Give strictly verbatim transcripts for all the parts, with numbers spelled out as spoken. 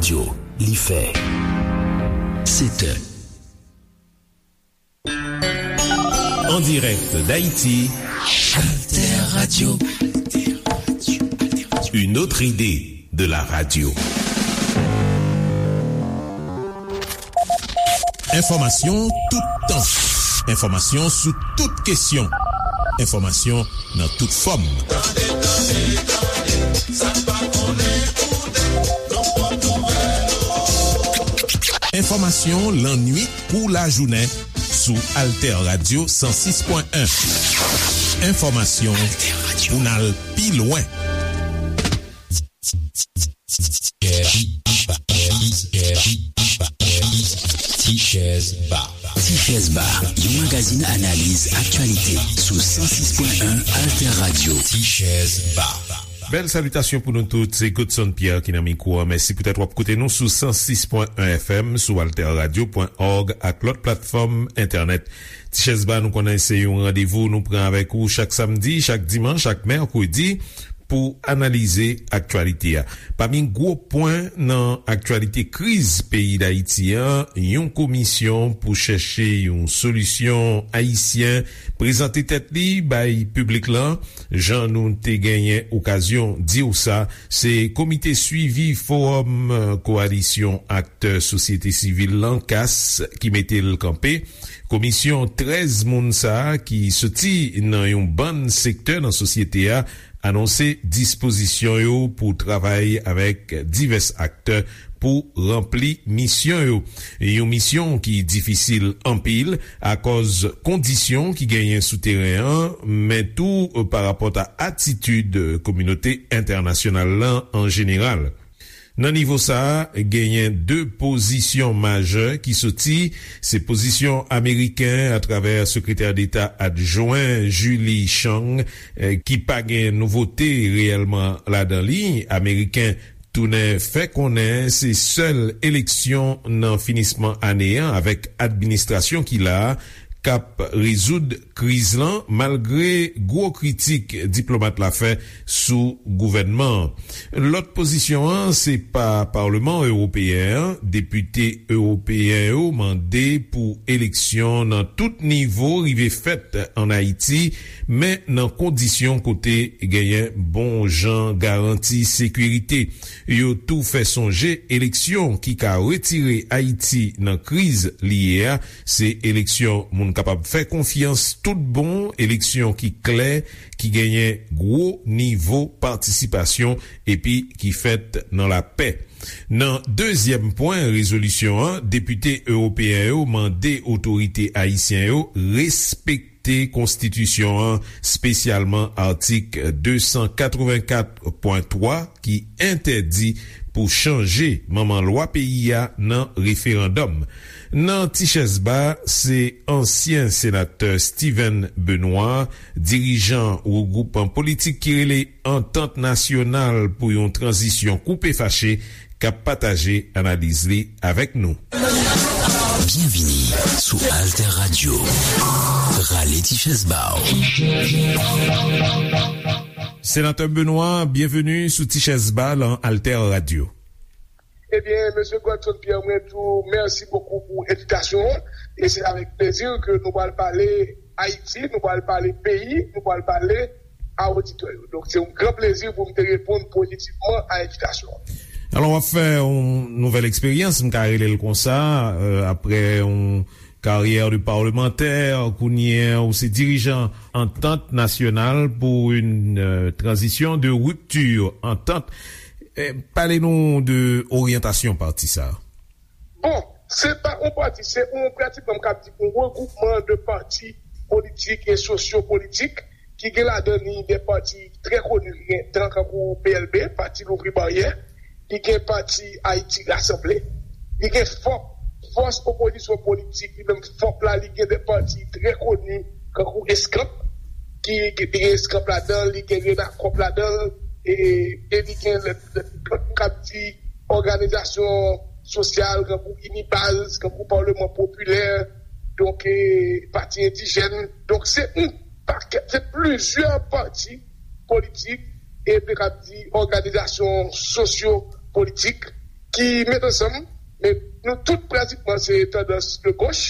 Yo, li fè sèt è. En direct d'Haïti, Alter Radio. Une autre idée de la radio. Enfòmasyon toutan. Enfòmasyon sou tout kesyon. Enfòmasyon nan tout fòm. Tande, tande, tande, sa n pa konnen koute, nou pran nouvèl ou. Enfòmasyon lannuit kou lajounen sou Alter Radio san sis pwen en. Enfòmasyon pou n al pi lwen. Tichèz Ba. Tichèz Ba, yon magazin analiz aktyalite sou san sis pwen en Alter Radio. Tichèz Ba. Bèl salitasyon pou nou tout, se Godson Pierre ki nan mikwo a. Mèsi poutèt w ap koute nou sou san sis pwen en F M, sou alter radio pwen org ak lòt platfòm entènèt. Tichèz Ba, nou konnen se yon randevou nou pran avèk ou chak samdi, chak dimanch, chak mèkredi pou analize aktyalite a. Pami gwo pwen nan aktyalite kriz peyi Dayiti an, yon komisyon pou chèche yon solisyon ayisyen prezante tèt li bay piblik lan. Jan nou te genyen okazyon di w sa, se Komite Swivi Fowòm, eh, Kowalisyon Aktè Sosyete Sivil lan, kas, ki mete l kanpe. Komisyon trèz moun sa a ki soti nan yon bann sektè nan sosyete a anonse dispozisyon yo pou travay avèk divès aktè pou ranpli misyon yo. Yon misyon ki difisil anpil akòz kondisyon ki genyen sou teren an, men tou, eh, pa rapòt a atitid kominote entènasyonal lan an jeneral. Nan nivo sa a, genyen de pozisyon majè ki soti, se pozisyon ameriken atravè Sekretè Deta Adjwen Julie Chang, eh, ki pa gen nouvote reyèlman ladan li. Ameriken tounen fè konnen se sèl eleksyon nan finisman ane an avèk administrasyon ki la a k ap rezoud kriz lan, malgre gwo kritik diplomat la fè sou gouvènman an. Lòt pozisyon an, se pa Paleman Ewopeyen an. Depite ewopeyen yo mande pou eleksyon nan tout nivo rive fèt ann Ayiti, men nan kondisyon kote genyen bon jan garanti sekirite. Yo tou fè sonje eleksyon ki ka retire Ayiti nan kriz li ye a, se eleksyon moun kapab fè konfyans tout bon, eleksyon ki klè, ki genyen gwo nivo patisipasyon epi ki fèt nan lapè. Nan dezyèm pwen rezolisyon an, depite ewopeyen yo mande otorite ayisyen yo respekte konstitisyon an, espesyalman atik de san katrevenkat pwen twa ki entèdi pou chanje manman lwa peyi a nan referandòm. Nan Tichèz Ba, se ansyen senatè Steven Benoît, dirijan regroupman politik ki rele Antant Nasyonal pou yon Tranzisyon Koupe Fache, k ap pataje analiz li avèk nou. Byenvini sou Alter Radio. Rale ti chèz ba w. Senatè Benoît, byenveni sou Ti Chèz Ba lan Alter Radio. Ebyen, mesye Godson Pierre, mwen di w mèsi bokou pou envitasyon an. E se avèk plezi ke nou pral pale Ayiti, nou pral pale peyi, nou pral pale a oditè yo. Donk, se yon gran plezi pou m te reponn pozitivman a envitasyon an. Alò, w ap fè yon nouvèl eksperyans, m ka rele l konsa, euh, aprè yon karyè de parlemantè, kounye a ou se dirijan Antant Nasyonal pou yon, euh, tranzisyon de ripti, Antant. Eh, pale nou de oryantasyon pati sa a. Bon, se pa yon pati, se yon, pratikman, m ka di, yon regroupman de pati politik e sosyo-politik ki gen ladan li de pati trè koni, gen tan kankou P L B, Pati Louvri Baryè, li gen pati Ayiti Rasanble, li gen fòp, fòs opozisyon politik, li menm fòp la, li gen de pati trè koni, kankou Eskanp, ki, ki, li gen Eskanp ladan, li gen Renakòp ladan, e, e li gen lòt, lòt, lòt, m ka di, òganizasyon sosyal, kankou Inibaz, kankou Paleman Popilè, donk, e, pati endijèn. Donk, se yon pakèt, se plizyè pati politik, e m te ka di òganizasyon sosyo-politik ki met ansanm, men nou tout pratikman se tandans de goch.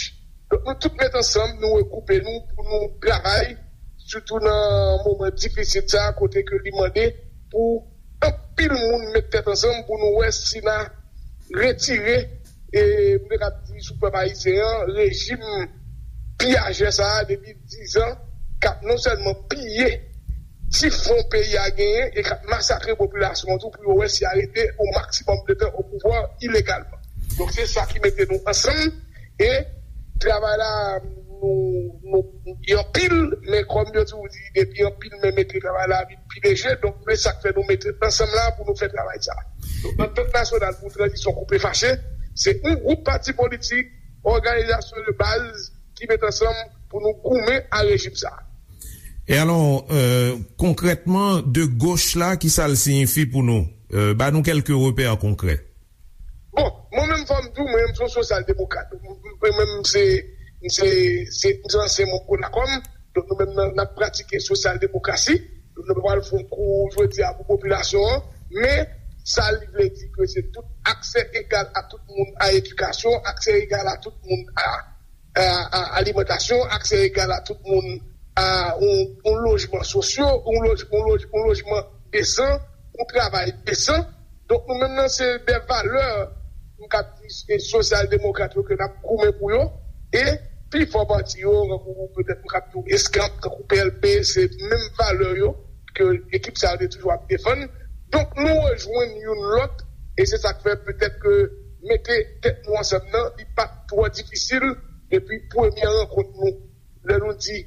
Donk nou tout met ansanm, nou regwoupe nou pou nou travay, sitou nan moman difisil sa a, kote ke li mande pou anpil moun met tèt ansanm pou nou wè si n a retire, e m te kab di sou pèp ayisyen an, rejim piyajè sa a depi diz an, k ap non sèlman piye ti fon peyi a genyen e k ap masakre popilasyon an tou pou yo wè si y a rete o maksimòm de tan o pouvwa ilegalman. Donk se sa ki mete nou ansanm e travay la nou, nou, li anpil, men kòm yo toujou di, depi anpil men mete travay la vin pi leje, donk men sa k fè nou mete ansanm la pou nou fè travay sa. Donk antant nasyonal pou tranzisyon koupe fache, se yon gwoup pati politik, òganizasyon de baz ki met ansanm pou nou goumen a rejim sa. E alò, euh, konkrètman, de goch la, ki sa l siyifi pou nou? Euh, ba nou kèlke repè konkrè. Bon, mwen menm fò m di w, mwen menm se yon sosyal demokrat. Mwen menm se, se, se, se ansyen manm Konakòm. Donk nou menm nan, n ap pratike sosyal demokrasi. Donk nou pral fè yon kou jodi a pou popilasyon an. Men sa li vle di ke se tout aksè egal a tout moun a edikasyon, aksè egal a tout moun a a, a alimantasyon, aksè egal a tout moun a yon, yon lojman sosyo, yon loj, yon loj, yon lojman desan, yon travay desan. Donk nou menm nan se de valè m kab di se sosyal demokrat yo ke n ap goumen pou yo. E pi fò pati yo, tankou petèt m kab di w eskanp, tankou P L P, se menm valè yo ke ekip sa yo te toujou ap defann. Donk nou rejwenn youn lòt e se sa k fè petèt ke mete tèt nou ansanm nan li pa t twò difisil depi premye rankont nou. Lè nou di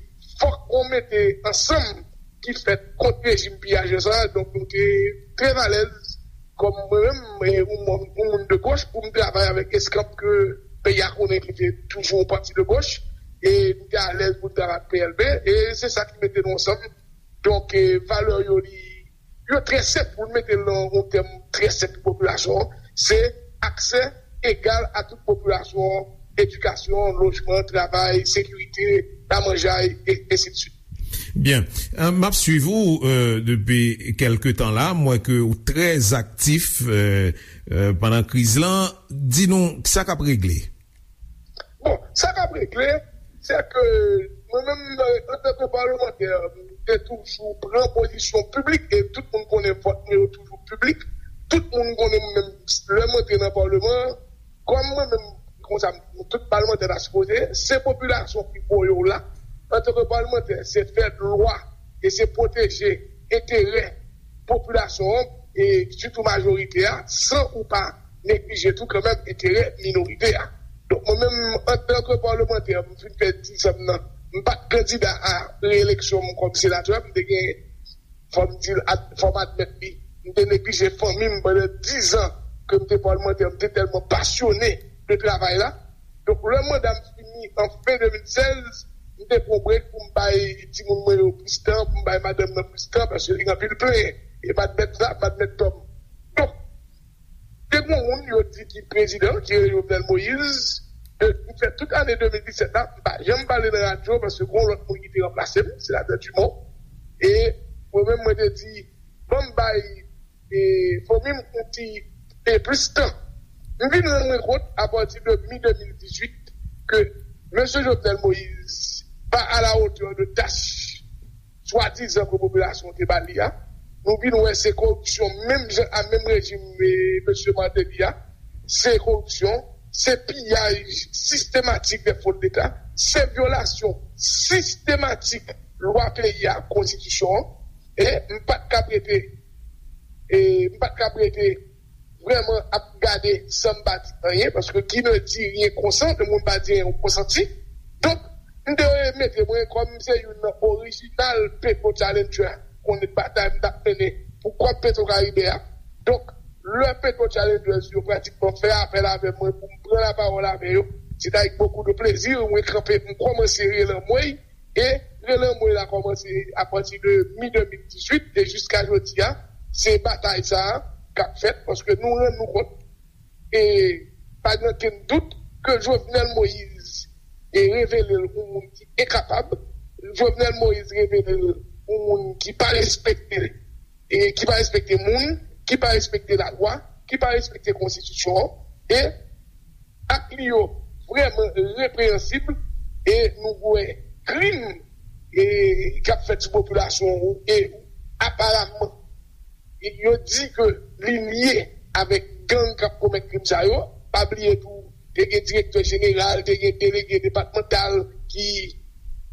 fòk gon mete ansanm ki fèt kont rejim piyajè sa a, donk nou te trè alèz kòm mwen menm e yon moun, yon moun de goch pou m travay avèk eskanp ke peyi a konnen ki te toujou yon pati de goch e nou te alèz pou n travay ak P L P e se sa ki mete nou ansanm. Donk valè yo li yo trè senp pou n mete l nan yon tèm trè senp pou popilasyon an, se aksè egal a tout popilasyon an, edikasyon, lojman, travay, sekirite, lamanjay, e ensidswit. Byen. M ap swiv ou depi kèlke tan la. M wè ke ou trè aktif pandan kriz lan. Di nou sa k ap regle. Bon, sa k ap regle, se ke mwen menm, antanke palmantè, m te toujou pran pozisyon piblik, e tout moun konnen vòt mwen yo toujou piblik. Tout moun konnen mwen menm, lè m antre nan palman an, kòm mwen menm, konsa, tout palmantè ta sipoze, se popilasyon ki voye w la. Antanke palmantè, se fè lwa e se pwoteje enterè popilasyon an, e sitou majorite a, san ou pa neglije tou kanmenm enterè minorite a. Donk mwen menm, antanke palmantè, m fin fè diz an m nan, m pa t kandida a reyeleksyon m kòm senatè, m te gen, fò m di l, fò m admèt li, m te neglije fanmi m pandan diz an ke m te palmantè, m te tèlman pasyone de travay la. Donk lè manda m fini an fen de mil sèz, m te pran brek pou m bay timoun mwen yo plis tan, pou m bay madanm nan plis tan, paske li gen anpil plenyen. E m admèt sa, m admèt tò m. Donk, te gen yon moun yo di ki prezidan, ki rele Jovenel Moïse, de, m fè tout ane de mil disèt la, m pa janm pale nan radyo, paske gen yon lòt moun ki te ranplase m, senatè Dumont. E mwen menm, mwen te di, ban m bay e fanmi m yon ti e plis tan. M vin rann mwen kont apati de mi de mil dizuit ke mesye Jovenel Moïse pa a la hauteur de tach swadizan ke popilasyon te ba li a. Nou vin wè se koripsyon menm jan a menm rejim e mesye Martelly a. Se koripsyon, se piyaj sistematik de fon deta, se vyolasyon sistematik lwa peyi a, konstitisyon an. E m pa t kab rete, e m pa t kab rete vrèman ap gade san m pa di anyen, paske qui ne dit rien consent, le moun pa di anyen ou konsanti. Donk, m te mete mwen kòm se youn nan orijinal Petro Challenger, konnen batay m t ap mennen pou kòb Petro Caribe a. Donk, lè Petro Challengers yo pratikman fè apèl avè mwen pou m pran lapawòl avè yo, se t avèk bokou de plezi mwen kanpe, m kòmanse rele anmwey, e rele anmwey la kòmanse apati de mi de mil dizuit e jiska jodi a, se batay sa a k ap fèt, paske nou rann nou kont, e pa gen okenn dout ke Jovenel Moïse e revele l yon moun ki enkapab, Jovenel Moïse revele l yon moun ki pa respekte, e ki pa respekte moun, ki pa respekte lalwa, ki pa respekte konstitisyon an, e ak li yo vrèman repreyansib, e nou wè krim e k ap fèt sou popilasyon an, e aparamman yo di ke li lye avèk gang k ap komèt krim sa yo. Pa bliye tou, te gen direktè jeneral, te gen delege depatmantal ki,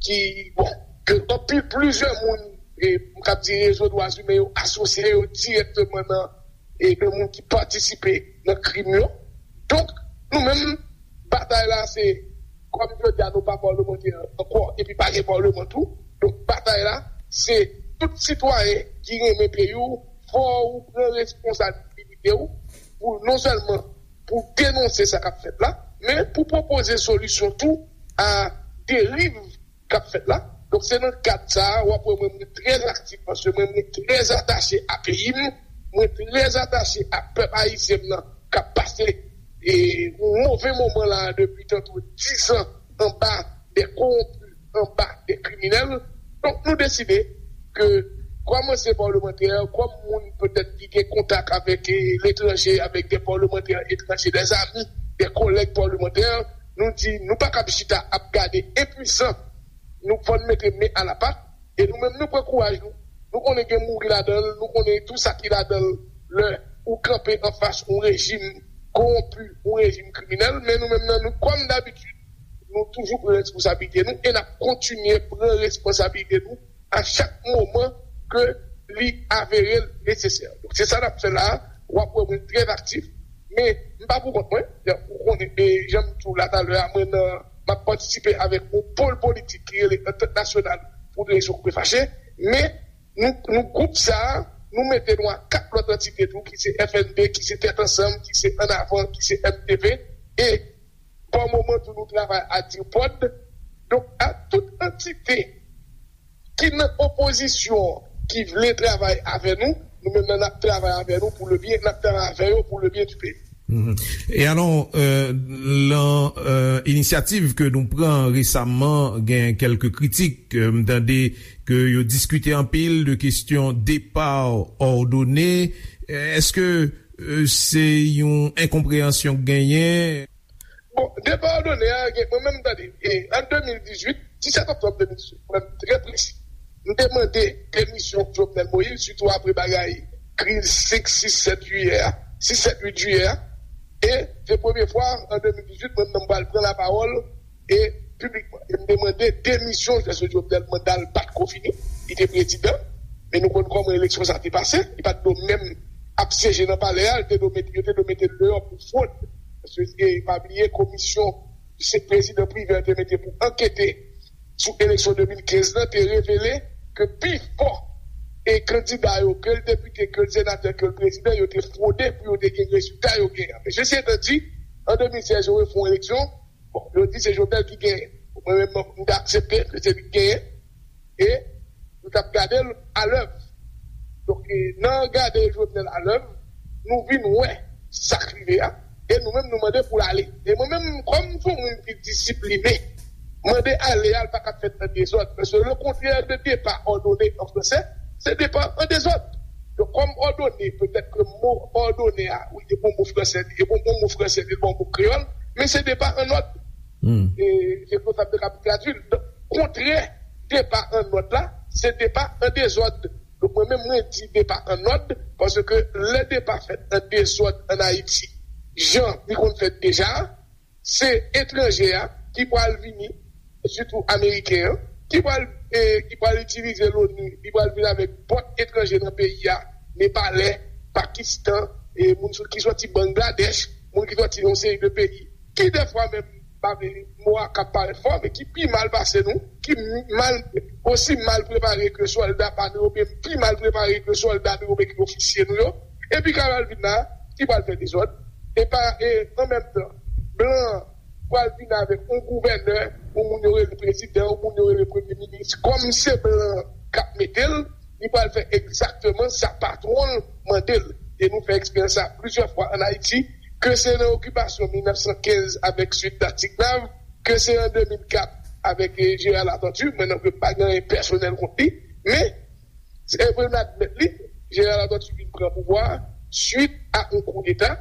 ki bon, ke anpil, plizyè moun, e, m kab di rezo dwa imen yo asosye yo dirèkteman nan, e, de moun ki patisipe nan krim yo. Donk, nou menm, batay la se, kòm jodi a nou pa pawlemantè ankò, epi pa gen pawleman tou. Donk, batay la se tout sitwayen ki renmen peyi w, fò ou pran responsabilite w pou non sèlman pou denonse sa k ap fèt la, men pou pwopoze solisyon tou a deriv k ap fèt la. Donk, se nan kad sa a, w ap wè mwen, mwen trè aktif, paske mwen, mwen trè atache a peyi m, mwen trè atache a pèp ayisyen m nan, k ap pase, e, yon move moman la depi tankou diz an anba de kowonpi, anba de kriminèl. Donk, nou deside ke, kòm ansyen pawlemantè, kòm moun petèt ki gen kontak avèk, e, letranje, avèk de pawlemantè etranje, de zami, de kòlèg pawlemantè, nou di nou pa kab chita ap gade enpwisan. Nou fò n mete men a la pat, e nou menm nou pran kouraj nou. Nou konnen gen mouri ladan l, nou konnen tou sa ki ladan l lè ou kanpe anfas yon rejim kowonpi, yon rejim kriminèl, men nou menm nan nou, kòm dabitid, nou toujou pran responsablite nou e n ap kontinye pran responsablite nou a chak moman ke li avere l nesesè. Donk, se sa n ap fè la a. W ap wè mwen trè aktif, men m pa pou kont mwen. Ou konnen, e jan m di w la talè a, mwen nan, m ap patisipe avèk yon pòl politik ki rele Antant Nasyonal pou Direksyon Koupe Fache, men nou, nou gwoup sa a, nou mete nou a kat lòt antite tou, ki se F N P, ki se Tèt Ansanm, ki se Ann Avan, ki se M T V, e pa moman tou nou travay a DIRPOD. Donk, a tout antite ki nan opozisyon, ki vle travay avè nou, nou menm nan n ap travay avè nou pou le byen, n ap travay avè yo pou le byen du peyi. Mhm. E alò, euh, lan euh, inisyativ ke nou pran resaman, gen kèlke kritik, euh, m tande ke yo diskite anpil de kesyon depa òdone. Èske euh, se yon enkonpreyansyon k genyen? Bon, depa òdone a, gen, mwen menm, tande, e, an de mil dizuit, disèt oktòb de mil dizuit, pou m trè presi, m te mande demisyon Jovenel Moïse, sitou apre bagay kriz senk, sis, sèt jiyè a, sis, sèt, uit jiyè a. E se premye fwa, an de mil dizuit, mwen menm m pral pran lapawòl, e piblikman. E m te mande demisyon Jovenel, manda l pa t ko fini, li te prezidan, men nou konn kòman eleksyon sa te pase, li pa t dwe menm ap syeje nan palè a, li te dwe mete, yo te dwe mete l deyò pou fwod. Paske, e, pa bliye, komisyon se prezidan Privè te mete pou ankete sou eleksyon de mil kenz lan te revele ke pi fò e kandida yo, ke l depite, ke l senatè, ke l prezidan, yo te fwode pou yo te gen rezilta yo genyen. Men sesi etan di, an de mil sèz, yo refè yon eleksyon. Bon, yo di se Jovenel ki genyen. Mwen menm, m te aksepte ke se li ki genyen. E nou t ap gade l alèv. Donk, e, nan gade Jovenel alèv, nou vin wè sa k rive a. E nou menm, nou mande pou l ale. E mwen menm, kòm m se yon moun ki disipline, mande ale a, l pa ka fèt nan dezòd. Paske le contraire de départ ordonné en français, c'est départ en désordre. Donk, kòm òdone, petèt ke mo òdone a, wi, e bon mo fransè, e bon, bon mo fransè, e bon mo kreyòl, men se départ en ordre. Hmm. E se konsa m te kab tradui l. Donk, kontrè départ en ordre la, se départ en désordre. Donk, mwen menm, mwen di départ en ordre, paske lè départ fèt an dezòd an Ayiti, jan li konn fèt deja, se etranje a ki pral vini, sitou ameriken an, ki pral, e, ki pral itilize l'ONU, li pral vin avèk pòt etranje nan peyi a, Nepalè, Pakistan, e, moun sou, ki sòti Bangladèch, moun ki sòti yon seri de peyi, ki dèfwa menm, pa vle, mo a ka parèt fò, men ki pi mal pase nou, ki mal, osi mal prepare ke sòlda pa nou yo, oubyen pi mal prepare ke sòlda nou yo, oubyen ke ofisye nou yo, epi k ap al vin la, ki pral fè dezòd, e pa, e an menm tan, blan an pral vin avèk yon gouvènè, yon moun yo rele prezidan, yon moun yo rele premye minis, kòm se blan k ap mete l, li pral fè egzakteman sa patwon l mande l. E nou fè eksperyans sa plizyè fwa ann Ayiti, ke se nan okipasyon mil nèf san kenz avèk Sweet Tactic Nav, ke se an de mil kat avèk, eh, Gérard Latortue, mwen menm ke m pa gen anyen pèsonèl kont li, men, se, eh, pou n admèt li, Gérard Latortue vin pran pouvwa a, swit a yon koudeta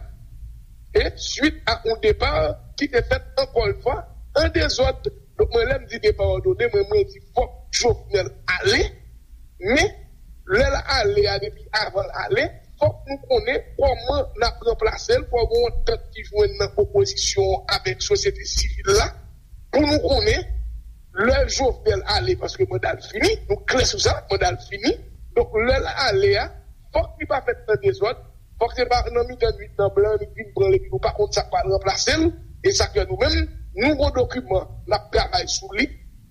e swit a yon depa ki te fèt ankò yon fwa an dezòd. Donk, mwen, lè m di depa òdone, mwen, mwen di fòk Jovenel ale. Men, lè l ale a, depi avan l ale, fòk nou konnen kòman n ap ranplase l, fòk gen yon antant ki jwenn nan opozisyon an avèk sosyete sivil la, pou nou konnen lè Jovenel ale, paske manda l fini, nou klè sou sa, manda l fini. Donk, lè l ale a, fòk li pa fèt nan dezòd, fòk se pa nan mitan nwit nan blan, li vin pran l, epi nou pa konn sa k pral ranplase l. E sa k fè nou menm, nou gon dokiman, n ap travay sou li.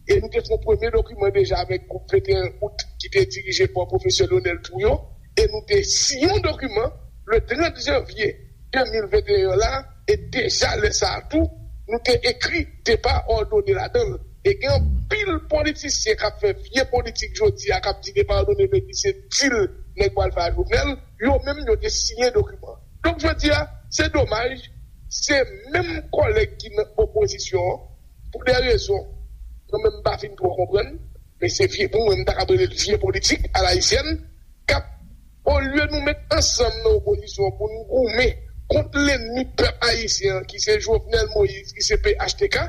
E nou te fè yon premye dokiman deja avèk gwoup venteyen out ki te dirije pa pwofesè Lionel Trouillot. E nou te siyen yon dokiman le trant janvye de mil venteyen la. E deja lè sa a tou, nou te ekri depa òdone ladan l. E gen anpil politisyen k ap fè vye politik jodi a, k ap di depa òdone vle di se dil nèg pral fè a Jovenel. Yo menm, yo te siyen dokiman. Donk, jodi a, se domaj, se menm kòlèg ki nan opozisyon an, pou de rezon mwen menm m pa fin twò konprann, men se vye, pou mwen, m ta kab rele l vye politik alayisyèn, k ap, olye nou met ansanm nan opozisyon pou n goumen kont lènmi pèp ayisyen an, ki se Jovenel Moïse, ki se P H T K,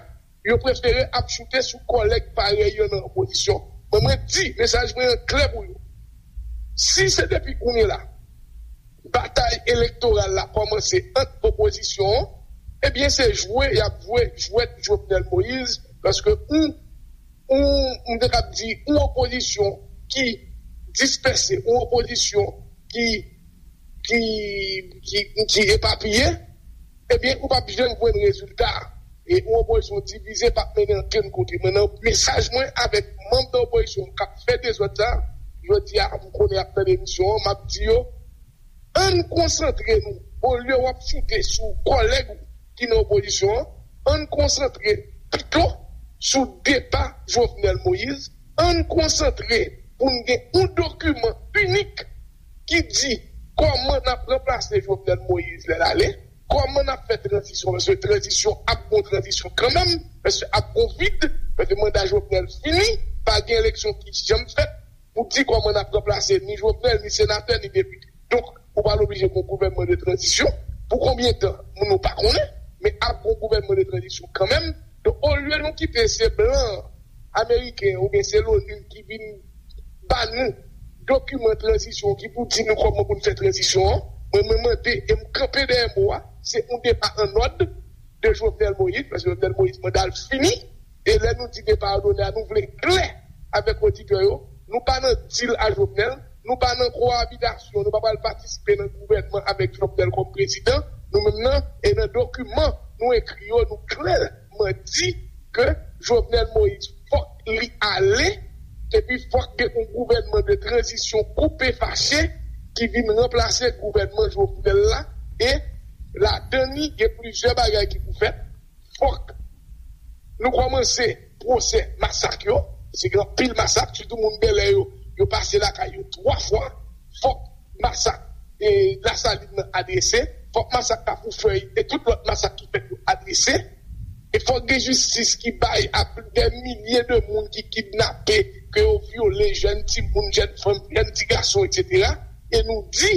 yo prefere ap choute sou kòlèg parèy yo nan opozisyon. Mwen, mwen di, mesaj mwen an klè pou yo. Si se depi kounye la, batay elektoral la kòmanse ant opozisyon an, ebyen, se jwe y ap jwe jwèt Jovenel Moïse, paske ou, ou, m te kab di, ou opozisyon ki dispèse, ou opozisyon ki, ki, ki, ki epapiye, ebyen, ou p ap janm jwenn rezilta. E yon opozisyon divize p ap mennen ankenn kote. Mwen, nan mesaj mwen avèk manm nan opozisyon k ap fè dezòd sa, jodi a, m konnen y ap tande emisyon an, m ap di yo, ann konsantre nou, olye w ap choute sou kòlèg ou ki nan opozisyon an, ann konsantre pito sou depa Jovenel Moïse, ann konsantre pou n gen yon dokiman inik ki di kòman n ap ranplase Jovenel Moïse lè l ale, kòman n ap fè tranzisyon, paske tranzisyon ap gon tranzisyon kanmenm, paske ap gon vid, paske manda Jovenel fini, pa gen eleksyon ki janm fèt, pou di kòman n ap ranplase ni Jovenel, ni senatè, ni depite. Donk, ou pral oblije gon gouvènman de tranzisyon. Pou konbyen tan? Moun nou pa konnen, men ap gon gouvènman de tranzisyon kanmenm. Donk, olye nou kite se blan ameriken oubyen se l'ONU ki vin ba nou dokiman tranzisyon ki pou di nou kòman pou n fè tranzisyon an, mwen, mwen mande e m kanpe dèyè mo a, se yon depa an nòd de Jovenel Moïse, paske Jovenel Moïse manda l fini, e lè nou di depa òdone a, nou vle klè avèk oditè yo, nou pa nan dil a Jovenel, nou pa nan kowabitasyon, nou pa pral patisipe nan gouvènman avèk Jovenel kòm prezidan, nou menm nan, e nan dokiman nou ekri yo, nou klèman di ke Jovenel Moïse fòk li ale, epi fòk gen yon gouvènman de tranzisyon koupe fache ki vin ranplase gouvènman Jovenel la, e ladan li gen plizyè bagay ki pou fèt. Fòk nou kòmanse pwosè masak yo, se gen anpil masak, sitou moun Bèlè yo, yo pase lakay yo twa fwa. Fòk masak e Lasalin nan adrese, fòk masak Kafou Fèy e tout lòt masak ki fèt yo adrese. E fòk gen jistis ki bay a plis de milye de moun ki kidnape, ke yo vyole, jèn timoun, jèn fanm, jèn ti gason, etsetera. E nou di,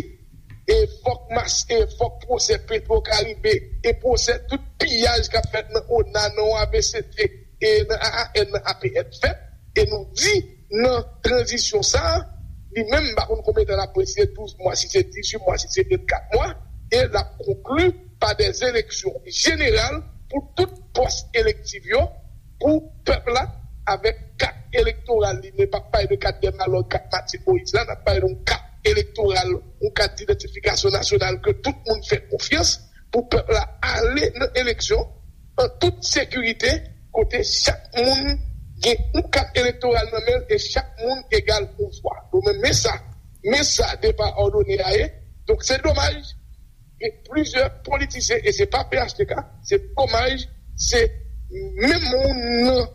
e fòk mas, e fòk pwosè Petro Caribe, e pwosè tout piyaj k ap fèt nan ona, nan O A V C T, e nan A A N, nan A P N fèt. E nou di, nan tranzisyon sa a, li menm, m pa konn konbyen tan l ap pran, si se douz mwa, si se dizuit mwa, si se vennkat mwa, e l ap konkli pa de eleksyon jeneral pou tout pòs elektif yo, pou pèp la, avèk kat elektoral li, men p ap pale de kat Dèmalòg, kat Martine Moïse la, n ap pale de yon kat elektoral, yon kat idantifikasyon nasyonal ke tout moun fè konfyans, pou pèp la ale nan eleksyon an tout sekirite, kote chak moun gen yon kat elektoral nan men l e chak moun egal yon vwa. Donk, men, men sa, men sa depa òdone a ye. Donk, se domaj, gen plizyè politisyen, e se pa P H T K, se domaj, se menm moun nan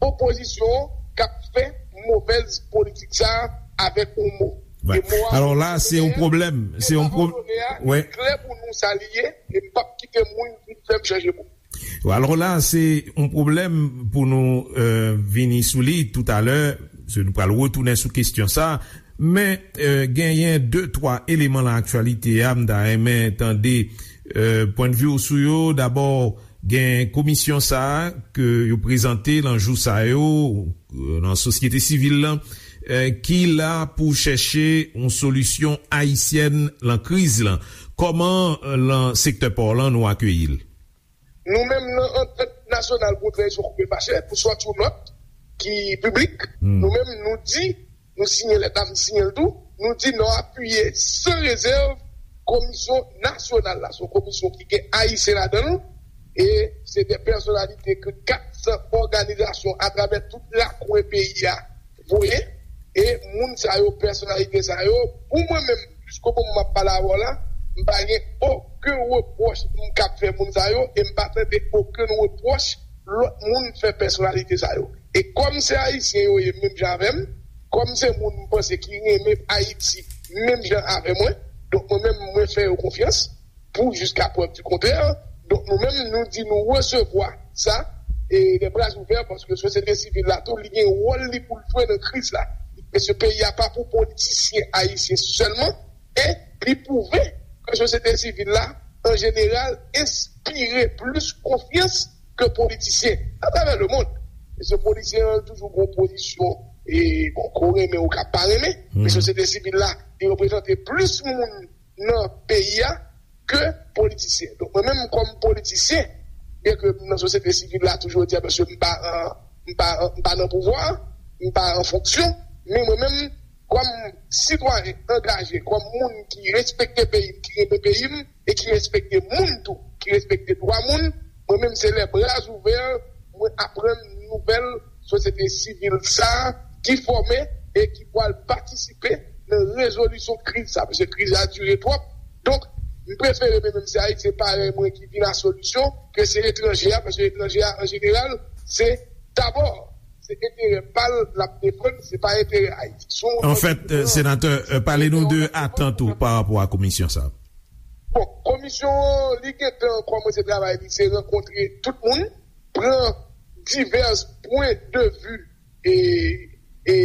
opozisyon an k ap fè movèz politik sa a avèk yon mo. Wè. E mo a, alò la, se yon pwoblèm. Se yon pwoblèm. Wè. Klè pou nou sa li ye, e m p ap kite moun vin fè m chanje mo. Alò la, se yon pwoblèm pou nou, euh, vini sou li toutalè, se nou pral retounen sou kesyon sa. Men, eh, genyen de, twa eleman nan aktyalite a, m ta renmen tande, eh, pwennvi w sou yo. Dabò, gen komisyon sa a ke yo prezante nan jou sa yo, eh, nan sosyete sivil lan, eh, ki la pou chèche yon solisyon ayisyèn lan kriz lan. Kòman, eh, lan sektè pa w lan nou akeyi l? Nou menm nan Antant Nasyonal pou Tranzisyon Koupe Fache, pou sòti yon nòt ki piblik, nou menm nou di, nou siyen lèt la, m siyen l tou, nou di nou apiye san rezèv komisyon nasyonal la. Se yon komisyon ki gen Ayisyen ladan l, e se de pèsonalite ke kat san òganizasyon atravè tout lakwen peyi a voye, e moun sa yo, pèsonalite sa yo, pou mwen menm, jiskobo m ap pale avè w la, m pa gen okenn repwòch m kab fè moun sa yo, e m pa tande okenn repwòch lòt moun fè pèsonalite sa yo. E kòm se Ayisyen yo ye menm jan avè m, kòm se moun m panse ki renmen Ayiti menm jan avè mwen, donk mwen menm, mwen fè yo konfyans, pou jiska prèv di kontrè. Donk, nou menm, nou di nou resevwa sa, e de bra ouvè, paske sosyete sivil la tou, li gen wòl li pou l jwe nan kriz la. Paske peyi a pa pou politisyen ayisyen sèlman, e li pwouve ke sosyete sivil la, an jeneral, enspire plis konfyans ke politisyen atravè lemonn. Paske politisyen an toujou gen yon pozisyon, e bon, ke w renmen ou ka pa renmen, men sosyete sivil la, li reprezante plis moun nan peyi a ke politisyen. Donk, mwen menm kòm politisyen, byen ke m nan sosyete sivil la toujou, jodi a, paske m pa an, m pa an, m pa nan pouvwa, m pa an fonksyon, men mwen menm, kòm sitwayen angaje, kòm moun ki respekte peyi m, ki renmen peyi m, e ki respekte moun tou, ki respekte dwa moun, mwen menm se lè bra ouvè, mwen aprann nouvèl sosyete sivil sa a ki fòme e ki pral patisipe nan rezolisyon kriz sa, paske kriz la dire twòp. Donk, m prefere mwen menm se Ayisyen parèy mwen ki vin a solisyon ke se etranje a, paske etranje a, an jeneral, se dabò, se enterè pa l l ap defann, se pa enterè Ayiti. Anfèt, senatè, pale nou de atant ou pa rapò a komisyon sa a. Bon, komisyon an, li gentan kòmanse travay li, se rankontre tout moun, pran divès pwen de vi e, e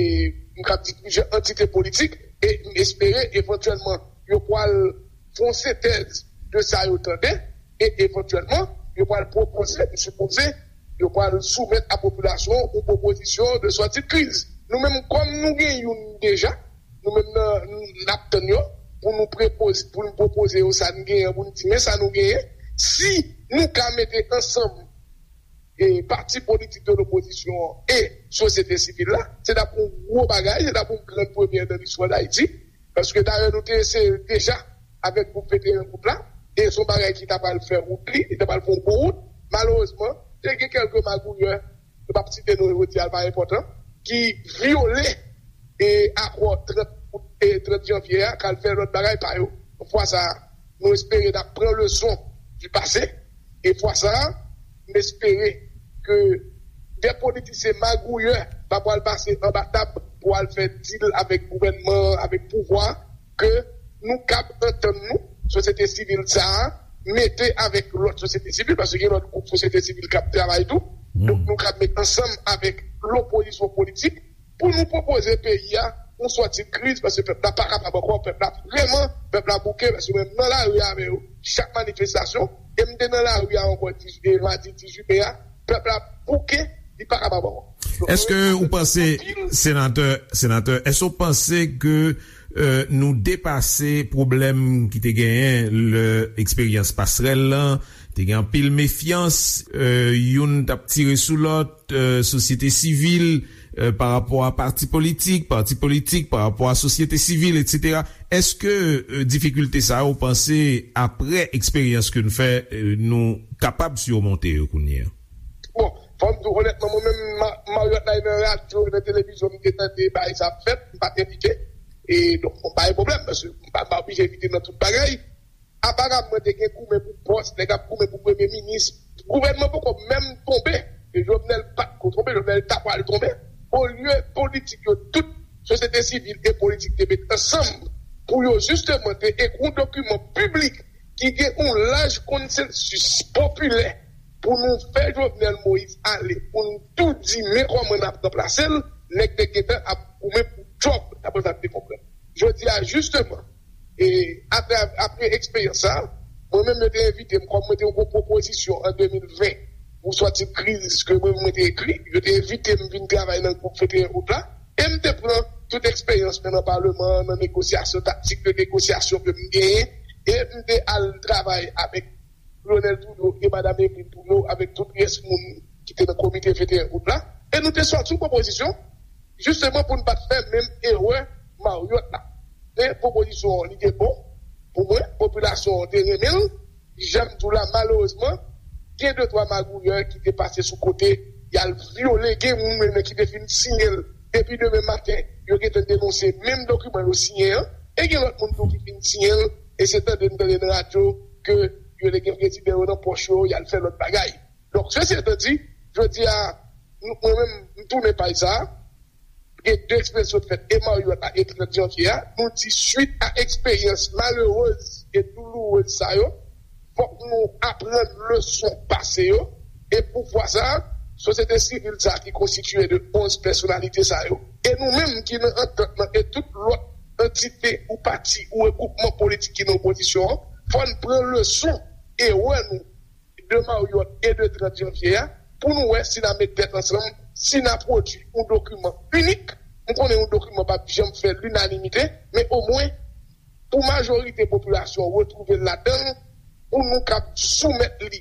m kab di plizyè antite politik, e m espere evantyèlman yo pral fè yon sentèz de sa yo tande, e evantyèlman yo pral pwopoze, m sipoze, yo pral soumèt a popilasyon yon pwopozisyon de sòti de kriz. Nou menm, kòm nou gen youn deja, nou menm nan, n ap tann yo pou nou prepoze, pou nou pwopoze yo sa n genyen, pou n di men sa nou genyen. Si nou ka mete ansanm e pati politik de lopozisyon an e sosyete sivil la, se t ap yon gwo bagay, se t ap yon gran premyè nan listwa Dayiti, paske dayè nou te eseye l deja avèk gwoup venteyen gwoup la, e se yon bagay ki ta pral fè wout li, li ta pral fè yon gwo wout. Malerezman, te gen kèlke magouyè, nou p ap site non yo, jodi a l pa enpòtan, ki vyole e akò trant out e trant janvye a, k al fè lòt bagay pa yo. Fwa sa a, nou espere n ap pran leson du passé. E fwa sa a, m espere ke de politisyen magouyè pa pral pase anba tab pou al fè dil avèk gouvènman an, avèk pouvwa, ke nou kab antann nou, sosyete sivil sa a, mete avèk lòt sosyete sivil, paske gen lòt gwoup sosyete sivil k ap travay tou. Donk, nou kab met ansanm avèk lopozisyon politik, pou nou pwopoze peyi a yon sòti de kriz, paske pèp la pa kapab ankò, pèp la vrèman, pèp la bouke, paske menm nan lari avè yo, chak manifestasyon, e m te nan lari a ankò, dis, e madi dizuit me a, pèp la bouke, li pa kapab ankò. Donk, èske ou panse, senatè, senatè, èske ou panse ke, euh, nou depase pwoblèm ki te genyen lè eksperyans pasrèl lan, te gen anpil mefyans, euh, youn t ap tire sou lòt, euh, sosyete sivil, euh, pa rapò a pati politik, pati politik pa rapò a sosyete sivil, etsetera. Èske, euh, difikilte sa yo, ou panse, apre eksperyans ke n fè, euh, nou kapab simonte yo kounye a? Bon, fò m di w onètman, mwen menm, ma-, Marriott la nan radyo, nan televizyon, m te tande bagay sa ap fèt, m pa t envite. E donk, bon, pa gen pwoblèm, paske m pa, m pa oblije envite nan tout bagay. Aparamman, te gen goumen pou pòs, nèg ap goumen pou premye minis. Gouvènman poko menm tonbe. E Jovenel pa t ko tonbe, Jovenel ta pral tonbe. Olye politik yo tout, sosyete sivil e politik te met ansanm pou yo jisteman te ekri yon dokiman piblik ki gen yon laj konsansis popilè pou nou fè Jovenel Moïse ale, pou nou tou di men kòman n ap ranplase l, nèg te gentan ap goumen pou djòb, daprè sa m te konprann. Jisteman, e apre, apre eksperyans sa, mwen menm yo te envite m, kòm mwen te yon gwo pwopozisyon an de mil ven pou sòti kriz ke mwen, mwen te ekri, yo te envite m vin travay nan gwoup venteyen out la, e m te pran tout eksperyans mwen nan Paleman an, nan negosyasyon, taktik de negosyasyon ke m genyen, e m te al travay avèk Lionel Trudeau e Madam Emeline Trudeau, avèk tout rès moun ki te nan komite venteyen out la, e nou te sòti yon pwopozisyon, jisteman pou n pa t fè menm erè Marriott la. Men pwopozisyon an, li te bon pou mwen, popilasyon an te renmen l, jan m di w la, malerezman, gen de twa magouyè ki te pase sou kote, y al vyole, gen moun menm ki te fin siyen l, depi demen maten, yo gentan denonse menm dokiman yo siyen an, e gen lòt moun tou ki fin siyen l, e se tande n tande nan radyo ke yo te gen prezidan yo nan pòch yo, y al fè lòt bagay. Donk, sesi etan di, jodi a, nou, mwen menm, m tounen paj sa a, gen de eksperyans sot fèt, e Marriott la, e trant janvye a, nou di, swit a eksperyans malerez e doulourez sa yo, fòk nou aprann leson pase yo, e pou fwa sa a, sosyete sivil sa a ki konstitye de onz pèsonalite sa yo, e nou menm ki nan antant lan, e tout lòt antite ou pati ou regwoupman politik ki nan opozisyon an, fò n pran leson erè nou de Marriott e de trant janvye a, pou nou wè si n a met tèt ansanm, si n a pwodui yon dokiman inik. M konnen yon dokiman p ap janm fè linanimite, men omwen, pou majorite popilasyon an retwouve l ladan l, pou nou kab soumèt li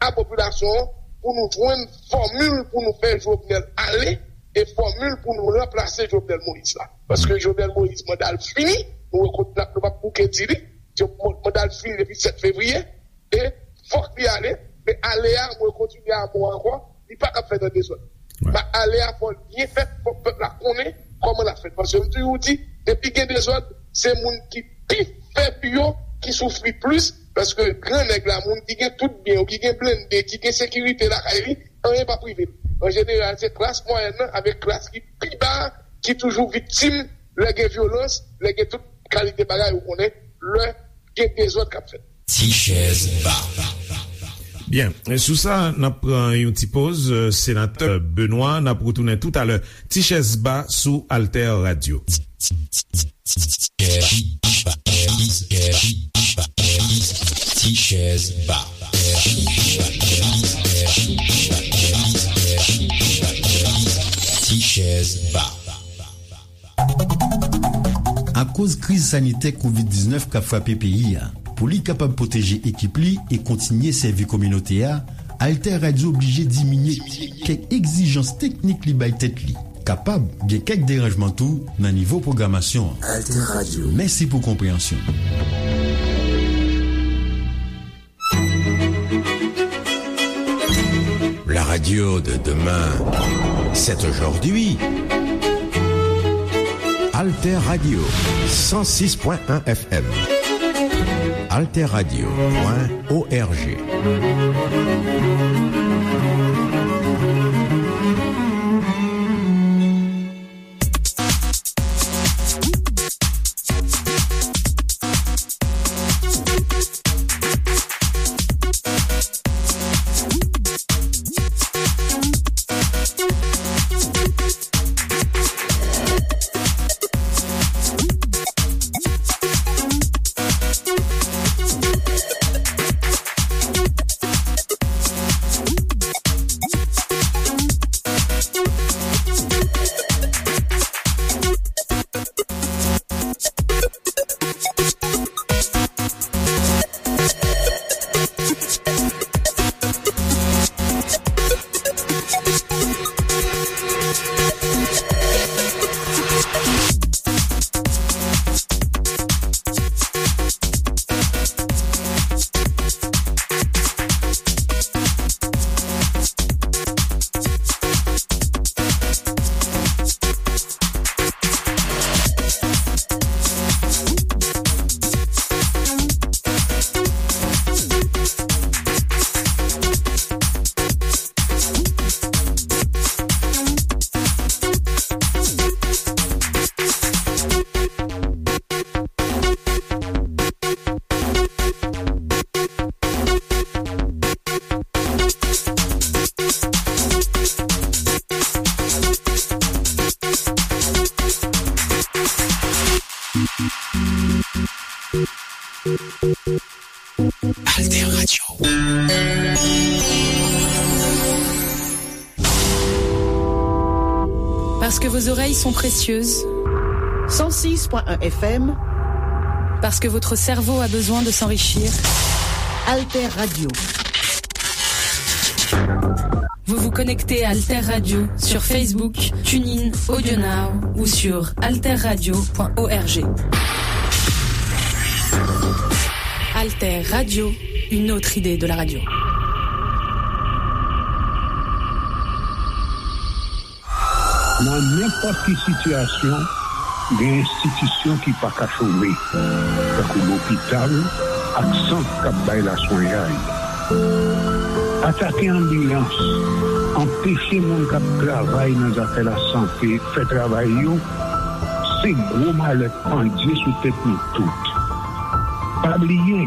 a popilasyon an, pou nou jwenn fòmil pou nou fè Jovenel ale, e fòmil pou nou ranplase Jovenel Moïse la. Paske Jovenel Moïse, manda l fini, nou rekonèt, nou p ap bouke di li, manda l fini depi sèt fevriye, e fòk li ale, men ale a, mwen kontinye a mo ankò, li pa t ap fèt an dezòd. Wi. Ba ale a fò l byen fèt, fò pèp la konnen kòman l ap fèt. Paske m toujou di, depi gen dezòd, se moun ki pi fèb yo ki soufri plis, paske gran nèg la, moun ki gen tout byen yo, ki gen blende, ki gen sekirite lakay li, anyen p ap rive l. An jeneral, se klas mwayèn nan avèk klas ki pi ba a ki toujou viktim lè gen vyolans, lè gen tout kalite bagay, ou konnen, lè gen dezòd k ap fèt. Ti chèz ba. Byen, sou sa, n ap pran yon ti poz, euh, senatè Benoît, n ap retounen toutalè. Ti chèz ba sou Alter Radio. Ti chèz ba. Ti chèz ba. Akoz kriz sanitè kovid diznèf k ap frape peyi a, pou li kapab pwoteje ekip li e kontinye sèvi kominote a, Alter Radio oblije diminye kèk egzijans teknik li bay tèt li. Kapab gen kèk deranjman tou nan nivo pwogramasyon an. Alter Radio. Mèsi pou konpreyansyon. La radio de demain, c'est aujourd'hui. Alter Radio, cent six point un F M. Alter Radio point O R G. Alter Radio. Parce que vos oreilles sont précieuses. Cent six point un F M. Parce que votre cerveau a besoin de s'enrichir. Alter Radio. Vous vous connectez à Alter Radio sur Facebook, TuneIn, AudioNow ou sur alterradio point org. Alter Radio, une autre idée de la radio. Nan nenpòt ki sitiyasyon, gen enstitisyon ki pa ka chome, tankou lopital ak sant k ap bay laswenyay. Atake anbilans, anpeche moun k ap travay nan zafè lasante fè travay yo, se gwo malè k pandye sou tèt nou tout. Pa bliye,